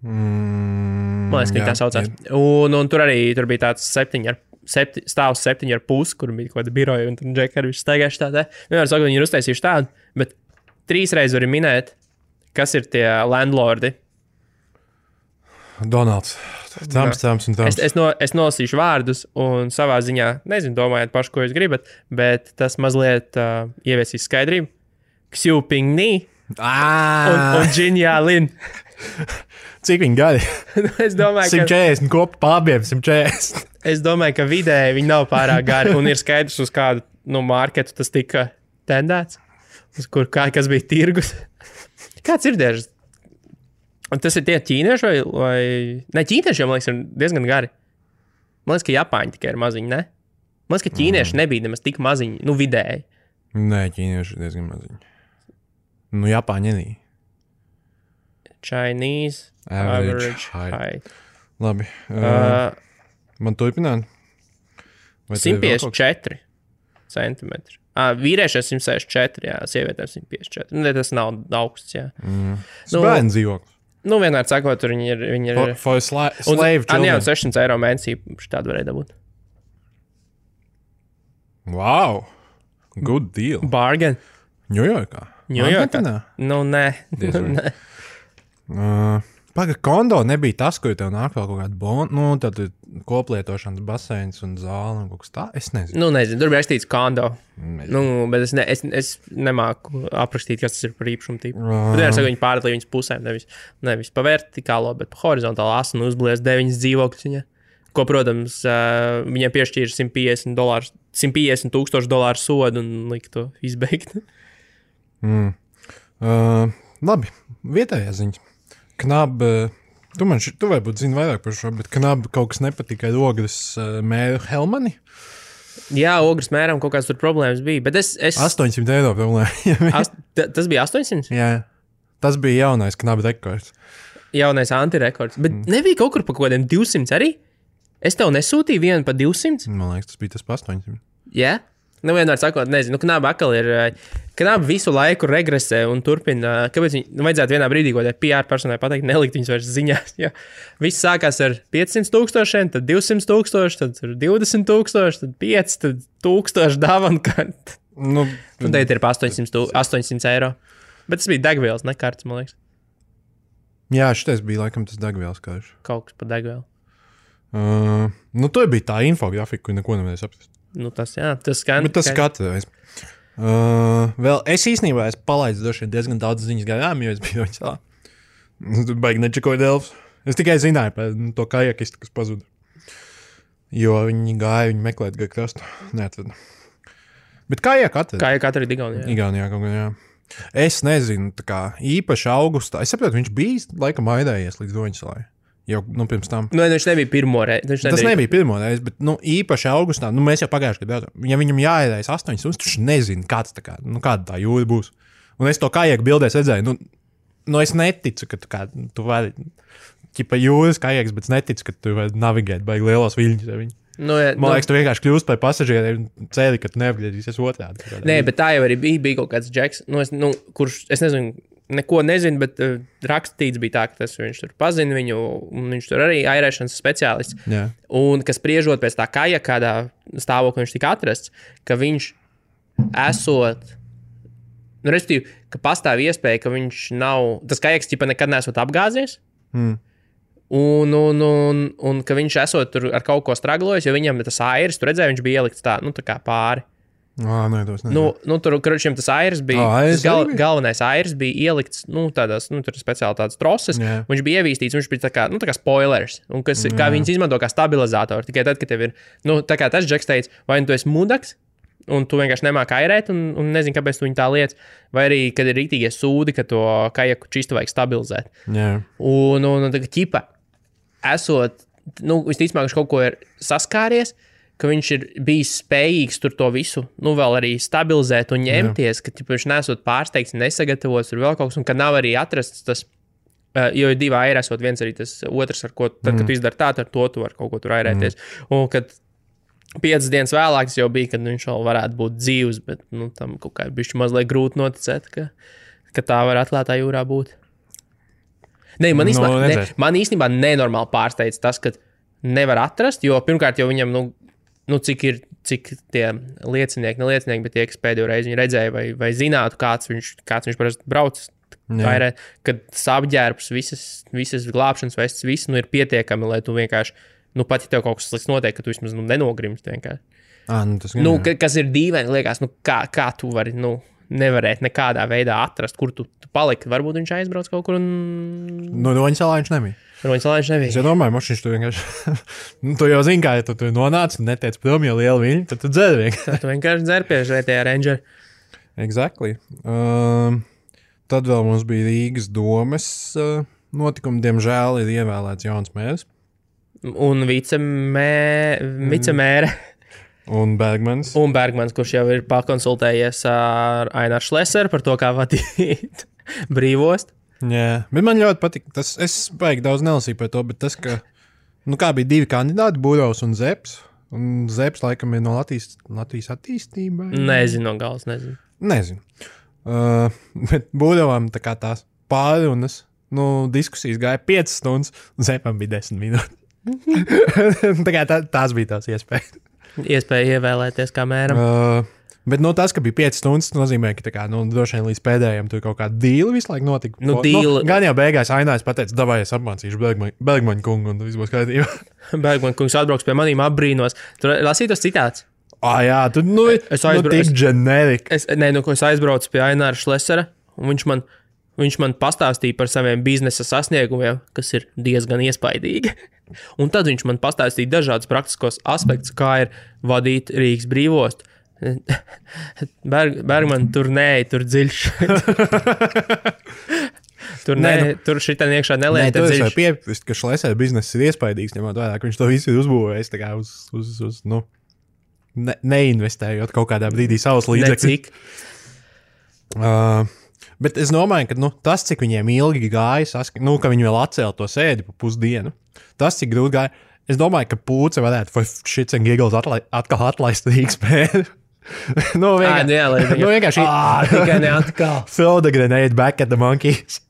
Man liekas, ka tā saucās. Un tur arī tur bija tāds stāvs 7,5, kur bija kaut kāda biroja, un tur Džeki arī staigājuši tādā. Vienmēr saka, viņi ir uztaisījuši tādu, bet 3 reizes var minēt, kas ir tie landlordi. Donalds. Trumps un Trumps. Es nolasīšu vārdus, un savā ziņā, nezinu, domājiet paši, ko jūs gribat, bet tas mazliet ieviesīs skaidrību. Xiu Pingni un Jinja Lin. Cik viņi gadi? Es domāju, 140 kopā pārbiem, 140. Es domāju, ka vidēji viņi nav pārāk gari, un ir skaidrs, uz kādu marketu tas tika tendēts, uz kas bija tirgus. Kāds ir diežas? Un tas ir tie ķīnieši vai... Ne, ķīnieši jau, man liekas, ir diezgan gari. Man liekas, ka Japāņi tikai ir maziņi, ne? Man liekas, ka ķīnieši nebija nemaz tik maziņi, vidēji. Nē, ķīnieši ir diezgan maziņi. Japāņi arī. Chinese average height. Labi. Man turpināt? 154 centimetri. Vīriešiem 164, jā, sievietēm 154. Tas nav augsts, jā. Bērnu dzīvoklis. Vienmēr sakot, tur viņi ir... For slave children. Jā, 600 eiro mēnesī tādu varēja dabūt. Wow! Good deal. Bargain. Ņujorkā? Nē. Paga, kondo nebija tas, kur tev nāk vēl kaut kāda bona, tad koplietošanas baseins un zāle un kaut kas tā, es nezinu. Nezinu, tur bija rakstīts kondo. Bet es nemāku aprakstīt, kas tas ir par īpašumu tīpu. Bet vienmēr saka, viņi pārdalīja viņas pusēm, nevis pa vertikālo, bet pa horizontālo asu un uzblies 9 dzīvokļus viņa. Ko, protams, viņiem piešķīra $150,000 sodu un lika to izbeigt. Labi, vietējā ziņa. Knab, tu varbūt zini vairāk par šo, bet Knab kaut kas nepatika ar Ogres mēru Helmani? Jā, Ogres mēram kaut kāds tur problēmas bija, bet es... 800 eiro problēma. Tas bija 800? Jā, tas bija jaunais Knab rekords. Jaunais antirekords, bet nebija kaut kur pa kaut kādiem 200 arī? Es tev nesūtīju vienu pa 200? Man liekas, tas bija tas pa 800. Jā? Vienmēr sakot, nezinu, Knaba atkal ir, Knaba visu laiku regresē un turpina, kāpēc viņi vajadzētu vienā brīdī, ko PR personai pateikt, nelikt viņus vairs ziņās, jo viss sākās ar 500,000, tad 200,000, tad 20,000, tad 5, tad 1,000 dāvana, un tagad ir pa 800 eiro. Bet tas bija degvielas, ne kartes, man liekas. Jā, šitais bija laikam tas degvielas karš. Kaut kas pa degvielu. Tur bija tā infografika, kur neko nevarēja saprast. Tas, jā, tas skan. Bet tas skatās. Vēl es īstenībā palaidu diezgan daudz ziņas garām, jo es biju viņas tā. Tur baigi nečakoju Delfs. Es tikai zināju par to kajakistu, kas pazuda. Jo viņi meklēt gar krastu. Neatrada. Bet kajak atrada. Kajak atrada Igaunijā. Igaunijā kaut kā, jā. Es nezinu, tā kā īpaši augustā. Es saprotu, viņš bija laikam aidējies līdz Doņasalai. Jau pirms tam. Viņš nebija pirmo reizi. Tas nebija pirmo reizi, bet īpaši augustā, mēs jau pagājuši gadu, ja viņam jāiedējas 8 stundas, viņš nezina, kāda tā jūra būs. Un es to kajaku bildēs redzēju, es neticu, ka tu vari, ķipa jūras kajaks, bet es neticu, ka tu vari navigēt baigi lielos viļņus. Man liekas, tu vienkārši kļūst par pasažieriem cēli, ka tu neapgriezīsies otrādi. Nē, bet tā jau arī bija kaut kāds džeks, kurš, es nezinu, neko nezinu, bet rakstīts bija tā, ka viņš tur pazina viņu, un viņš tur arī airēšanas speciālists. Yeah. Un kas spriežot pēc tā kaja, kādā stāvoklī viņš tika atrasts, ka viņš esot, respektīvi, ka pastāv iespēja, ka viņš nav, tas kajaks ķipa nekad nesot apgāzies, un ka viņš esot tur ar kaut ko straglojis, jo viņam tas airis, tu redzēji, viņš bija ielikts tā, tā kā pāri. Nē, tur tas airs bija, galvenais airs bija ielikts, tādās, tur speciāli tādas troses, viņš bija ievīstīts, viņš bija tā kā spoilers, un kā viņas izmanto kā stabilizātori, tikai tad, kad tev ir, tā kā tas džeks teica, vai tu esi mudaks, un tu vienkārši nemāki airēt, un nezini, kāpēc tu viņu tā liec, vai arī, kad ir rītīgie sūdi, ka to kajaku čistu vajag stabilizēt. Yeah. Un tā kā ķipa, esot, visticamāk, viņš kaut ko ir saskāries, ka viņš ir bijis spējīgs tur to visu, vēl arī stabilizēt un ņemties, ka viņš nesot pārsteigts, nesagatavots tur vēl kaut kas, un ka nav arī atrasts tas, jo ir 2 airi esot, viens arī tas otrs, ar ko, tad, kad tu izdari tā, ar to tu var kaut ko tur airēties. Un kad 5 dienas vēlāk tas jau bija, kad viņš vēl varētu būt dzīvs, bet, tam kaut kā bišķi mazliet grūti noticēt, ka tā var atklātā jūrā būt. Man īstenībā nenormāli pārsteidz tas, ka nevar atrast, jo pirmkārt jau viņam, cik tie liecinieki, bet tie, kas pēdējo reizi viņu redzēja vai zinātu, kāds viņš parasti brauc, kad apģērbs, visas glābšanas vestes, viss ir pietiekami, lai tu vienkārši, pat ja tev kaut kas slikts notiek, ka tu vismaz nenogrimst vienkārši. Kas ir dīvaini, liekas, kā tu vari, nevarēt nekādā veidā atrast, kur tu paliki. Varbūt viņš aizbrauc kaut kur un... Roņsalā viņš nebija. Es jau domāju, viņš tu vienkārši... tu jau zini, kā, ja tu nonāc un netiec prom, jo liela viļņa, tad tu dzer vienkārši. Tu vienkārši dzer pie žētajā Ranger. Exactly. Tad vēl mums bija Rīgas domes notikumi. Diemžēl ir ievēlēts jauns mērs. Un vicemēre. Un Bergmans. Kurš jau ir pakonsultējies ar Aināru Šleseru par to, kā vadīt brīvost. Jā, bet man ļoti patīk. Es baigi daudz nelasīju par to, bet tas, ka kā bija 2 kandidāti, Būrovs un Zeps. Un Zeps laikam ir no Latvijas attīstībai. Nezinu, no galas nezinu. Bet Būrovam tā kā tās pārunas, diskusijas gāja 5 stundas, un Zepam bija 10 minūtes. Tā kā tās bija tās iespējas. Iespēja ievēlēties kā mēram. Bet tas, ka bija 5 stundas, nozīmē, ka droši vien līdz pēdējiem tur kaut kāda dīla visu laiku notika. Gan jau beigās Ainājs pateica, davai es apmācīšu Bergmaņa kungu, un viss būs kārtībā. Bergmaņa kungs atbrauks pie manīm apbrīnos. Tur lasīja tas citāts. Jā, tu tik generic. Es aizbraucu pie Aināra Šlesera, un viņš man pastāstīja par saviem biznesa sasniegumiem, kas ir diezgan iespaidīgi. Un tad viņš man pastāstīja dažādus praktiskos aspektus, kā ir vadīt Rīgas brīvostu. Bergman, tur dziļš. Tur šitā iekšā nelieta dziļš. Tur es piekrist, ka Šlesera bizness ir iespaidīgs, ņemot vērā, ka viņš to visu ir uzbūvējis tā kā uz neinvestējot kaut kādā brīdī savus līdzekļus. Bet es domāju, ka tas, cik viņiem ilgi gāja, ka viņi vēl atcēla to sēdi pa pusdienu, tas, cik grūti gāja, es domāju, ka Pūce varētu for shits and giggles atkal atlaist Rīgas mēru. Vienkārši tikai neatkal. Throw the grenade back at the monkeys.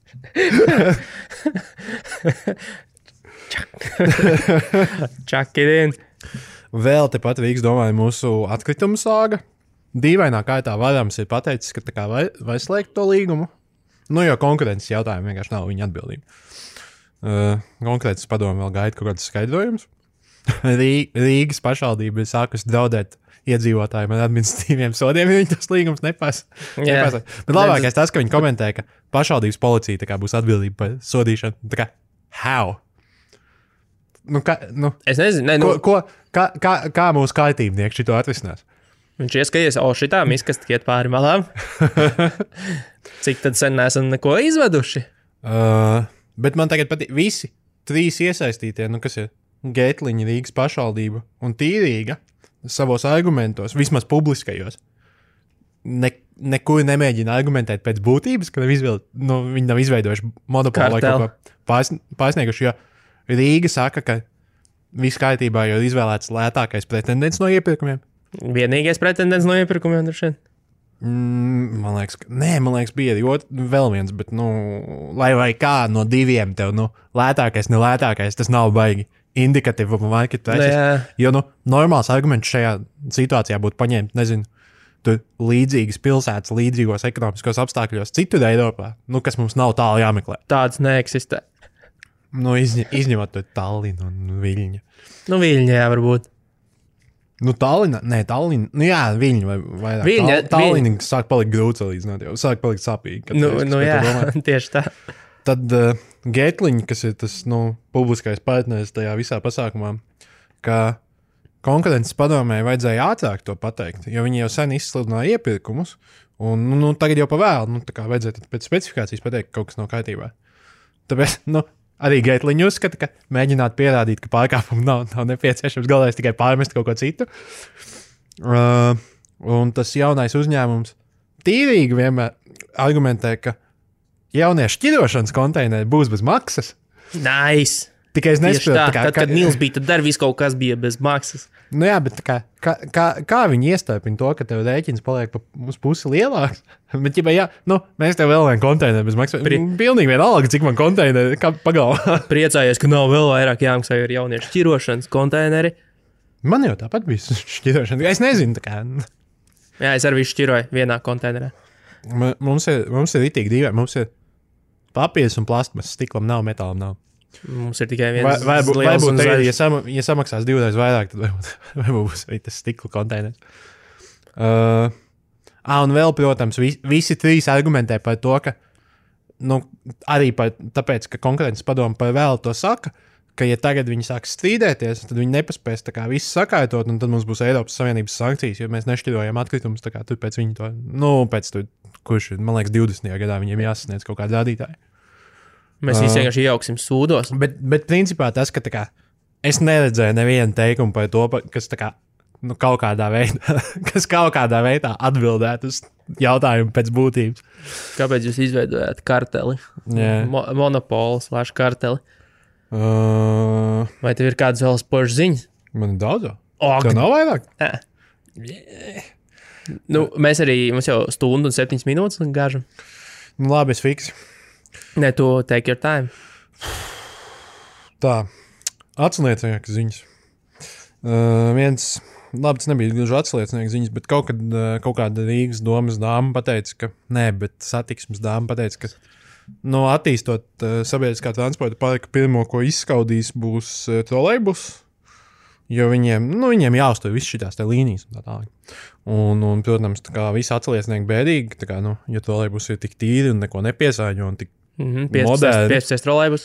Chuck it in. Vēl tepat Rīgas domāju mūsu atkritumu sāga. Dīvainā kārtā Varams ir pateicis, ka tā kā vai slēgt to līgumu. Jo konkurences jautājumi vienkārši nav viņa atbildība. Konkurences padomu vēl gaida kaut kāds skaidrojums. Rīgas pašvaldība ir sākusi draudēt iedzīvotājiem ar administratīviem sodiem, ja viņi tas līgums nepasa. Bet labākais tas, ka viņi komentē, ka pašvaldības policija tā kā būs atbildība par sodīšanu. Tā kā, how? Es nezinu. Kā mūsu kaitībnieki šito atrisinās? Viņš ieskaties, šitā miskast iet pāri malām. Cik tad sen neesam neko izveduši? Bet man tagad patīk visi 3 iesaistītie, kas ir Gētliņa, Rīgas pašvaldība un Tīrīga savos argumentos, vismaz publiskajos, nekur nemēģina argumentēt pēc būtības, ka viņi nav izveidojuši monopolu vai kaut ko pārsnieguši, jo Rīga saka, ka viss kārtībā jau ir izvēlēts lētākais pretendents no iepirkumiem. Vienīgais pretendents no iepirkumiem ir šeit? Man liekas, bija vēl viens, bet, lai vai kā no 2 tev, lētākais, nelētākais, tas nav baigi indikatīvu marketu. Jo, normāls arguments šajā situācijā būtu paņemt, nezinu, tur līdzīgas pilsētas, līdzīgos ekonomiskos apstākļos citur Eiropā, kas mums nav tālu jāmeklē. Tāds neeksistē. Izņemot to Tallinu un Viļņu. Viļņā varbūt. Tallina, Viļņa vai vairāk. Tallina sāk palikt grūts līdzināt, jau sāk palikt sāpīgi. Tieši tā. Tad Gētliņa, kas ir tas, publiskais partneris tajā visā pasākumā, ka konkurences padomē vajadzēja ātrāk to pateikt, jo viņi jau sen izsludināja iepirkumus, un tagad jau pavēl, tā kā vajadzētu pēc specifikācijas pateikt, ka kaut kas nav kārtībā. Tāpēc, arī Geitliņu uzskata, ka mēģināt pierādīt, ka pārkāpumu nav nepieciešams, galvenais tikai pārmest kaut ko citu. Un tas jaunais uzņēmums tīrīgi vienmēr argumentē, ka jauniešu šķirošanas konteineri būs bez maksas. Nice! Tikai es nesaprotu, tad, kad Nils bija, tad viss kaut kas bija bez maksas. Nu jā, bet kā viņi iestāpina to, ka tev rēķins paliek uz pusi lielāks? Bet, ja mēs tev vēl vienu konteineru bez maksas. Pilnīgi vienalga, cik man konteineri pagalvā. Priecājies, ka nav vēl vairāk jāmaksā ar jauniešu šķirošanas konteineri. Man jau tāpat bija šķirošana. Es nezinu, tā kā. Jā, es arī šķiroju vienā konteinerā. Mums ir ritīgi dīvaini. Mums ir papīrs un plastmas, stiklam nav, metālam nav. Mums ir tikai viens liels un zaļs. Ja samaksās 2 reizes vairāk, tad varbūt būs arī tas stikla konteiners. Un vēl, protams, visi 3 argumentē par to, ka arī tāpēc, ka konkurences padoma par vēlu to saka, ka ja tagad viņi sāks strīdēties, tad viņi nepaspēs tā kā visu sakārtot, un tad mums būs Eiropas Savienības sankcijas, jo mēs nešķirojam atkritumus, tā kā tur pēc viņi to, pēc tur, kurš, man liekas, 20. gadā viņiem jāsasniedz kaut kādi rādītāji. Mēs visi vienkārši iejauksim sūdos. Bet principā tas, ka tā kā, es neredzēju nevienu teikumu par to, kas tā kā, kaut kādā veidā atbildētu uz jautājumu pēc būtības. Kāpēc jūs izveidojāt karteli? Monopolu/karteli? Vai tev ir kādas vēl spožas ziņas? Man ir daudz. Tev nav vairāk? Mēs arī, mums jau 1 stundu un 7 minūtes gāžam. Labi, es fiksi. Nē, tu take your time. Tā, atsliecinieks ziņas. Labi, tas nebija gluži atsliecinieks ziņas, bet kaut kāda Rīgas domas dāma pateica, bet satiksmes dāma pateica, ka attīstot sabiedriskā transporta parka pirmo, ko izskaudīs, būs trolejbus, jo viņiem jāuztur viss šitās te līnijas un tā tālāk. Un protams, tā kā visi atsliecinieki bēdīgi, tā kā, ja trolejbus ir tik tīri un neko nepiesāņo un tik moderni. 15 trolejbus.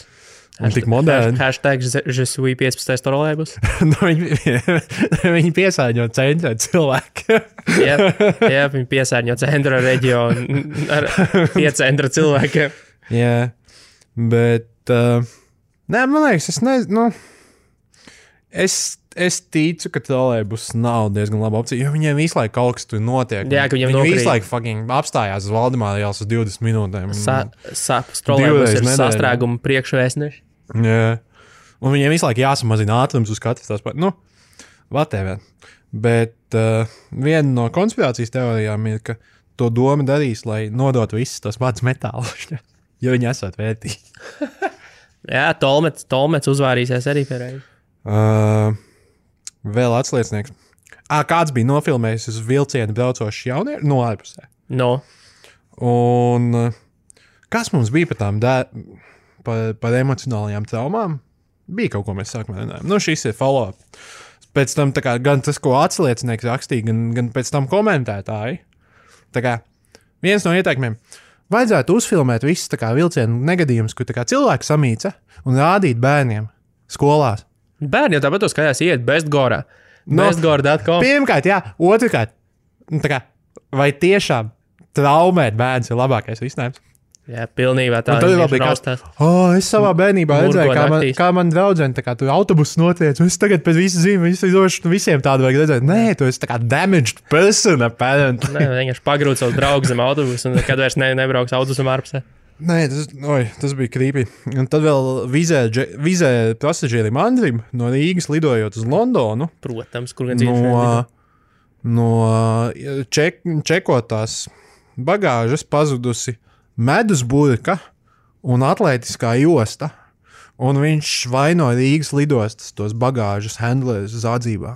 Un tik moderni. Hashtag je suis 15 trolejbus. Viņi piesārņo centra cilvēku. jā, viņi piesārņo centra reģionu ar piecentra cilvēkiem. Jā, bet man liekas, es ticu, ka trolejbus nav diezgan laba opcija, jo viņiem visu laiku kaut kas tur notiek. Jā, ka viņi visu laiku fucking apstājās uz Valdemāra ielas uz 20 minūtēm. Trolejbus ir sastrēguma priekšvēstneši. Jā, un viņiem visu laiku jāsamazina ātrums uz katras tās whatever. Bet viena no konspirācijas teorijām ir, ka to doma darīs, lai nodot visus tos mācas metālus, jo viņi esot vērtīgi. Jā, Tolmets uzvārīsies arī pērēji. Vēl atsliecinieks. Kāds bija nofilmējis uz vilcienu braucošs jaunieši no ārpusē. Un kas mums bija par tām par emocionālajām traumām? Bija kaut ko mēs sākumā runājām. Šis ir follow-up. Pēc tam tā kā, gan tas, ko atsliecinieks rakstīja, gan pēc tam komentētāji. Tā kā viens no ieteikumiem. Vajadzētu uzfilmēt visus tā kā vilcienu negadījumus, kur tā kā cilvēki samīca un rādīt bērniem skolās. Bērni jau tāpat skatās iet Bestgorā. Bestgora.com. Pirmkārt, jā. Otrkārt, vai tiešām traumēt bērns ir labākais risinājums? Jā, pilnībā tā. Un tad raustās. Es savā bērnībā redzēju, kā man draudzene tā kā tur autobuss notiec, un es tagad pēc visu zinu, visiem tādu vajag redzēt. Nē, tu esi tā kā damaged person, apparently. Nē, vienkārši pagrūt savu draugu zem autobusu, un kad vairs nebrauks autobusam ārpusē. Nē, tas bija creepy. Un tad vēl vizē pasažierim Andrim no Rīgas lidojot uz Londonu. Protams, kur gan dzīvošana. No čekotās bagāžas pazudusi medus burka un atlētiskā josta. Un viņš vaino Rīgas lidostas tos bagāžas handlers zādzībā.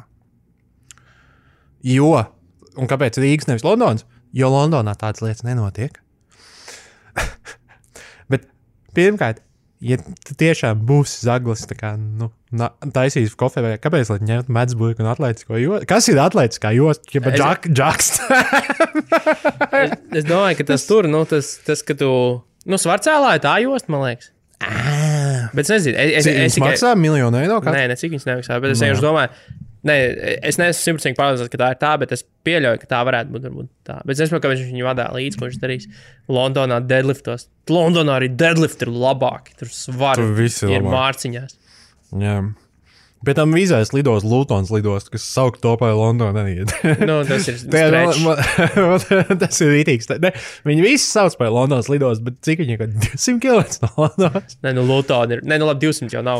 Un kāpēc Rīgas nevis Londons? Jo Londonā tādas lietas nenotiek. Bet pirmkārt, ja tiešām būs zaglis, tā kā, taisīs kofē, kāpēc, lai ņemt medusburku un atlētisko jostu? Kas ir atlētiskā josta? Džakst. Es domāju, ka tas tur, tas, ka tu, svarcēlā ir tā josta, man liekas. Bet es nezinu. Es maksā $1 miljonu eiro? Nē, cik viņas nemaksā, bet es vienkārši domāju, Nē, es neesmu 100% pārliecināts, ka tā ir tā, bet es pieļauju, ka tā varētu būt varbūt tā. Bet es nezinu, kāpēc viņš viņu vadā līdzi, ko viņš darīs Londonā deadliftos. Londonā arī deadlift ir labāki. Tur svari ir mārciņās. Jā. Pēc tam vīzēs lidos Lutons lidost, kas saukt topā Londonā neiet. Nu, tas ir stretch. Tas ir rītīgs. Viņi visi sauc par Londonas lidost, bet cik viņi 200 km no Londonas? Nē, nu Luton ir. Nē, nu labi, 200 jau nav.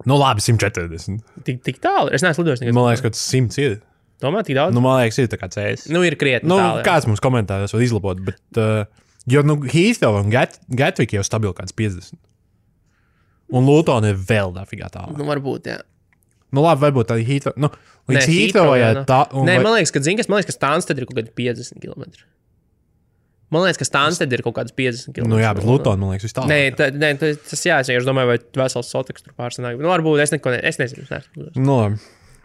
Nu labi, 140. Tik tālu? Es neesmu lidojis nekad. Man liekas, ka tas 100 ir. Tomēr tik daudz? Nu, man liekas, ir tā kā CS. Nu, ir krietni tālu. Kāds mums komentāros var izlabot, bet jo, Heathrow un Gatwick jau stabili kāds 50. Un Luton ir vēl dafigā tālu. Nu, varbūt, jā. Nu, labi, varbūt arī Heathrow. Nu, līdz Heathrow, jā. Nē, man liekas, ka Stansted ir kaut kādi 50 km. Man liekas, ka Stansted ir kaut kāds 50 km. Nu, jā, bet Luton, man liekas, viss tālāk. Nē, tas jā, es domāju, vai vesels Soteks tur pārsanāk. Nu, varbūt es nezinu. Nu, labi.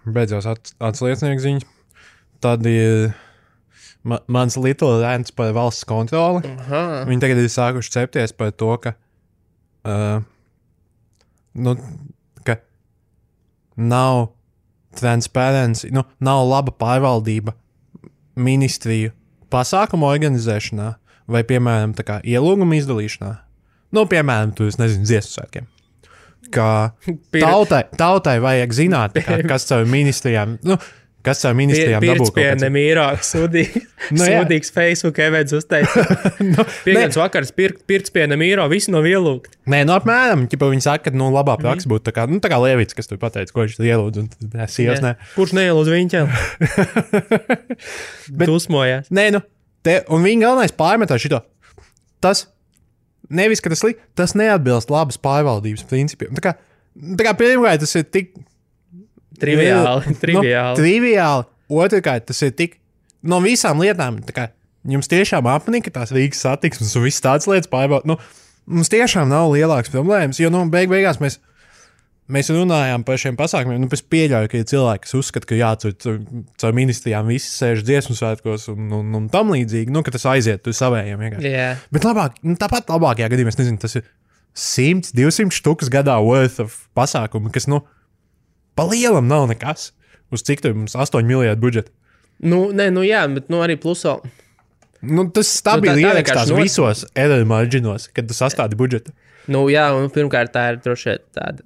Beidzās atsliecinieks ziņas. Tad ir mans Little rants par valsts kontroli. Viņi tagad ir sākuši cepties par to, ka nav transparency, nav laba pārvaldība ministriju pasākumu organizēšanā vai, piemēram, tā kā ielūgumu izdalīšanā. Nu, piemēram, tu, es nezinu, dziesmu svētkiem. Ka tautai vajag zināt, kas caur ministrijām, Pirts pie Nemīrā sūdīgs Facebook events uzteica. Pieņems vakars Pirts pie Nemīrā, visi nav ielūgti. Nē, apmēram, viņi saka, ka labā praksa būtu tā kā Lievits, kas tur pateica, ko viņš ielūdz, un sievas nē. Kurš neielūdz viņķēl? Dusmojās. Nē, un viņa galvenais pārmetā šito. Tas, nevis, ka tas neatbilst labas pārvaldības principiem. Tā kā pirmkārt, tas ir tik triviāli. Triviāli. Otrkārt, tas ir tik no visām lietām. Jums tiešām apnika tās Rīgas satiksmes un viss tāds lietas pārbaudīt. Mums tiešām nav lielāks problēmas, jo beigās mēs runājām par šiem pasākumiem. Es pieļauju, ka ir cilvēki, kas uzskata, ka caur ministrijām visi sēž dziesmu svētkos un tam līdzīgi, ka tas aiziet tur savējiem vienkārši. Yeah. Bet tāpat labākajā gadījumā, es nezinu, tas ir 100, 200 štukas gadā worth of pasākumu, kas, pa lielam nav nekas. Uz cik tur mums 8 miljardu budžeta? Jā, bet arī plusā. Tas stabili ierakstās visos error marginos, kad tu sastādi budžetu. Jā, un pirmkārt tā ir droši vien tāda.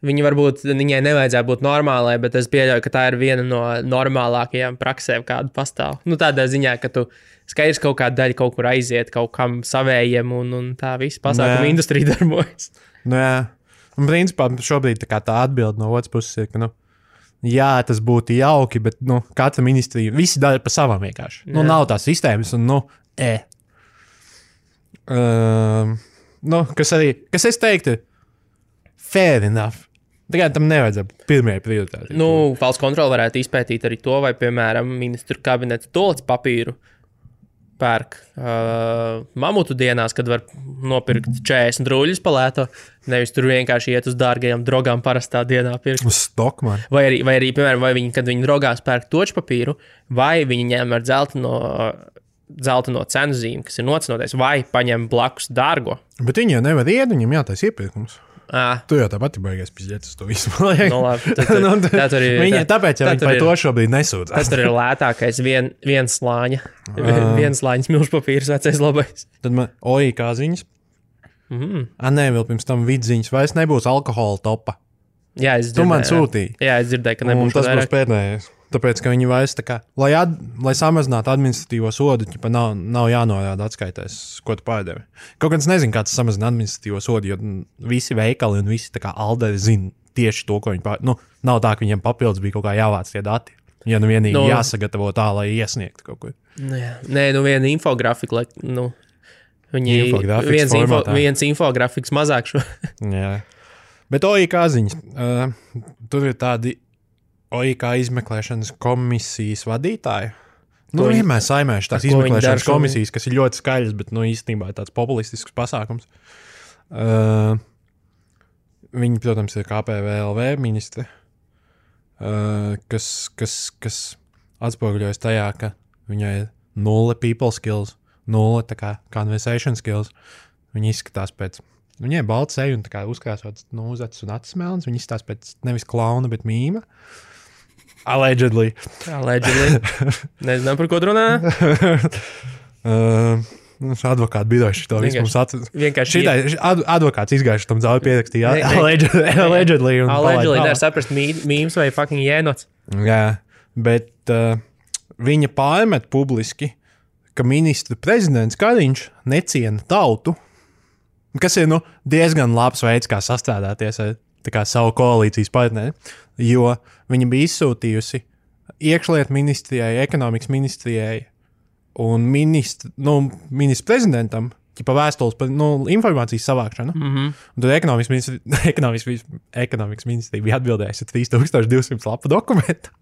Viņai nevajadzētu būt normālai, bet es pieļauju, ka tā ir viena no normālākajām praksēm, kāda pastāv. Tādā ziņā, ka tu skaidrs kaut kāda daļa kaut kur aiziet, kaut kam savējiem, un tā visa pasākuma industrija darbojas. Jā. Un principā šobrīd tā atbilde no otras puses ir, ka, jā, tas būtu jauki, bet, katra ministrija, visi dara pa savam vienkārši. Nav tās sistēmas, un, kas es teiktu, fair enough. Tikai tam nevajadzētu pirmajai prioritātei. Valsts kontrole varētu izpētīt arī to, vai, piemēram, ministru kabineta toalets papīru pērk mamutu dienās, kad var nopirkt 40 rūļus palēto, nevis tur vienkārši iet uz dārgajām drogām parastā dienā pirkt. Uz Stockman. Vai arī, piemēram, kad viņi drogās pērk toču papīru, vai viņi ņem ar dzelteno cenu zīmi, kas ir nocenoties, vai paņem blakus dārgo. Bet viņi jau nevar iet, viņam jātais iepirkums. Tu jau tāpat baigās pizdzēt uz to visu. Tāpēc jau viņi par to šobrīd nesūdzās. Tas tur ir lētākais viens slāņa. Viens slāņas milžpapīrs vecais labais. Tad man kā ziņas. Nē, vēl pirms tam vidziņas vairs nebūs alkohola topa. Jā, es dzirdēju. Tu man sūtīji. Jā, es dzirdēju, ka nebūs tas būs pēdējais. Tāpēc, ka viņi vairs tā kā, lai samazinātu administratīvo sodu, nav jānorāda atskaitēs, ko tu pārdevi. Kaut gan es nezinu, kā tas samazina administratīvo sodu, jo visi veikali un visi tā kā alderi zina tieši to, ko viņi pārdevi. Nav tā, ka viņiem papildus bija kaut kā jāvāc tie dati. Ja vienīgi jāsagatavo tā, lai iesniegtu kaut ko. Nē, viena infografika, lai, viens infografiks mazāk šo. Jā. Bet kā ziņas, tur ir tādi kā izmeklēšanas komisijas vadītāji. Vienmēr saimēšu tās izmeklēšanas komisijas, kas ir ļoti skaļas, bet īstenībā ir tāds populistisks pasākums. Viņi, protams, ir KPVLV ministri, kas atspoguļojas tajā, ka viņai ir 0 people skills, 0 tā kā conversation skills. Viņi izskatās pēc, viņai ir balts seju un tā kā uzkrāsots uzacis un acis melns. Viņi izskatās pēc nevis klauna, bet mīma. Allegedly. Nezinām, par ko tu runā. Advokāti biroši to visu mums atcer. Vienkārši advokāts izgājuši tam zaudē pierakstīja. Allegedly. Allegedly nevar saprast mīms vai fucking jēnots. Jā, bet viņa pārmet publiski, ka ministra prezidents Kariņš neciena tautu, kas ir diezgan labs veids, kā sastrādāties ar savu koalīcijas partneri, jo viņa bija izsūtījusi iekšlietu ministrijai, ekonomikas ministrijai un ministra prezidentam vēstules par informācijas savākšanu. Un tad ekonomikas ministrija bija atbildējusi 3200 lapu dokumentu.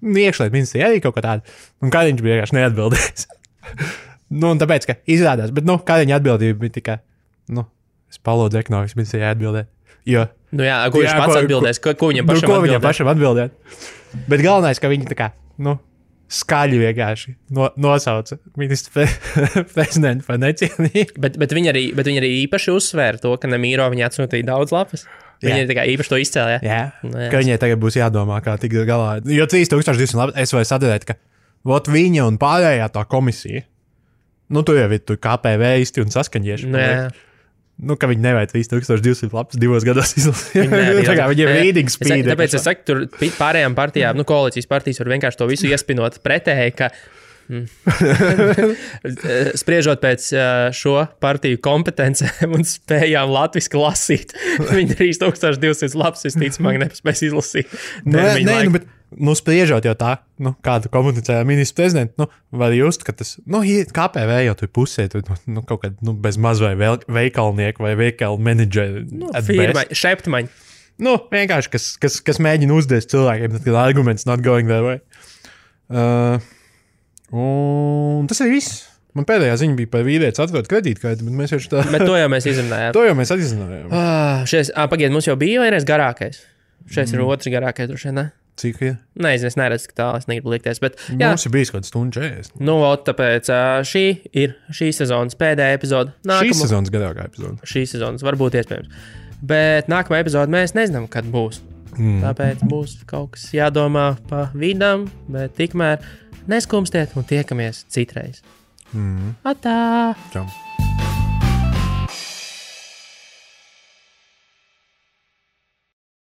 Iekšlietu ministrija arī kaut kā tāda. Un Kariņš bija vienkārši neatbildējis. Un tāpēc, ka izrādās, bet Kariņa atbildība bija tikai, es palūdzu ekonomikas ministrijai atbildēt. Jo, ko viņš pats atbildēs? Ko viņam pašam atbildēt? Bet galvenais, ka viņi tā kā, skaļi vienkārši nosauca ministru prezidentu par necienību. Bet viņi arī īpaši uzsvēra to, ka Nemīro viņi atsūtīja daudz lapas. Viņi tā kā īpaši to izcēlīja. Jā, ka viņai tagad būs jādomā, kā tikt galā. Jo 3200 lapas es varu sadarēt, ka viņa un pārējā tā komisija, tu jau ir KPV īsti un saskaņieši. Ka viņi nevajag 3200 lapas 2 gados izlasīt. Viņiem ir reading speed. Tāpēc es saku, tur pārējām partijām, koalīcijas partijas var vienkārši to visu iespinot pretēji, ka spriežot pēc šo partiju kompetencēm un spējām latviski lasīt, viņi 3200 lapas visticamāk nepaspēs izlasīt. Bet spriežot jau tā, kādu komunicēja ministrs prezidents, var just, ka tas, KPV jau tur pusē, kaut kad, bez maz vai veikalnieku vai veikalu menedžeri. Firma, šeptmaņi. Vienkārši, kas mēģina uzdēst cilvēkiem, tad arguments not going their way. Un tas ir viss. Man pēdējā ziņa bija par vīrietis atvert kredītkarti, bet mēs jau tā... Bet to jau mēs izrunājām. Pagaid, mums jau bija vienreiz garākais. Šeit ir otrs garākais, droši vien, ne? Cik ir? Nezinu, es neredzu, ka tālu, es negribu likties, bet... Mums ir bijis kaut stundu 40. Tāpēc šī ir šīs sezonas pēdējā epizode. Šīs sezonas garākā epizode. Šīs sezonas varbūt iespējams. Bet nākamā epizode mēs nezinām, kad būs. Tāpēc būs kaut kas jādomā pa vidam, bet tikmēr neskumstiet un tiekamies citreiz. Atā! Čau!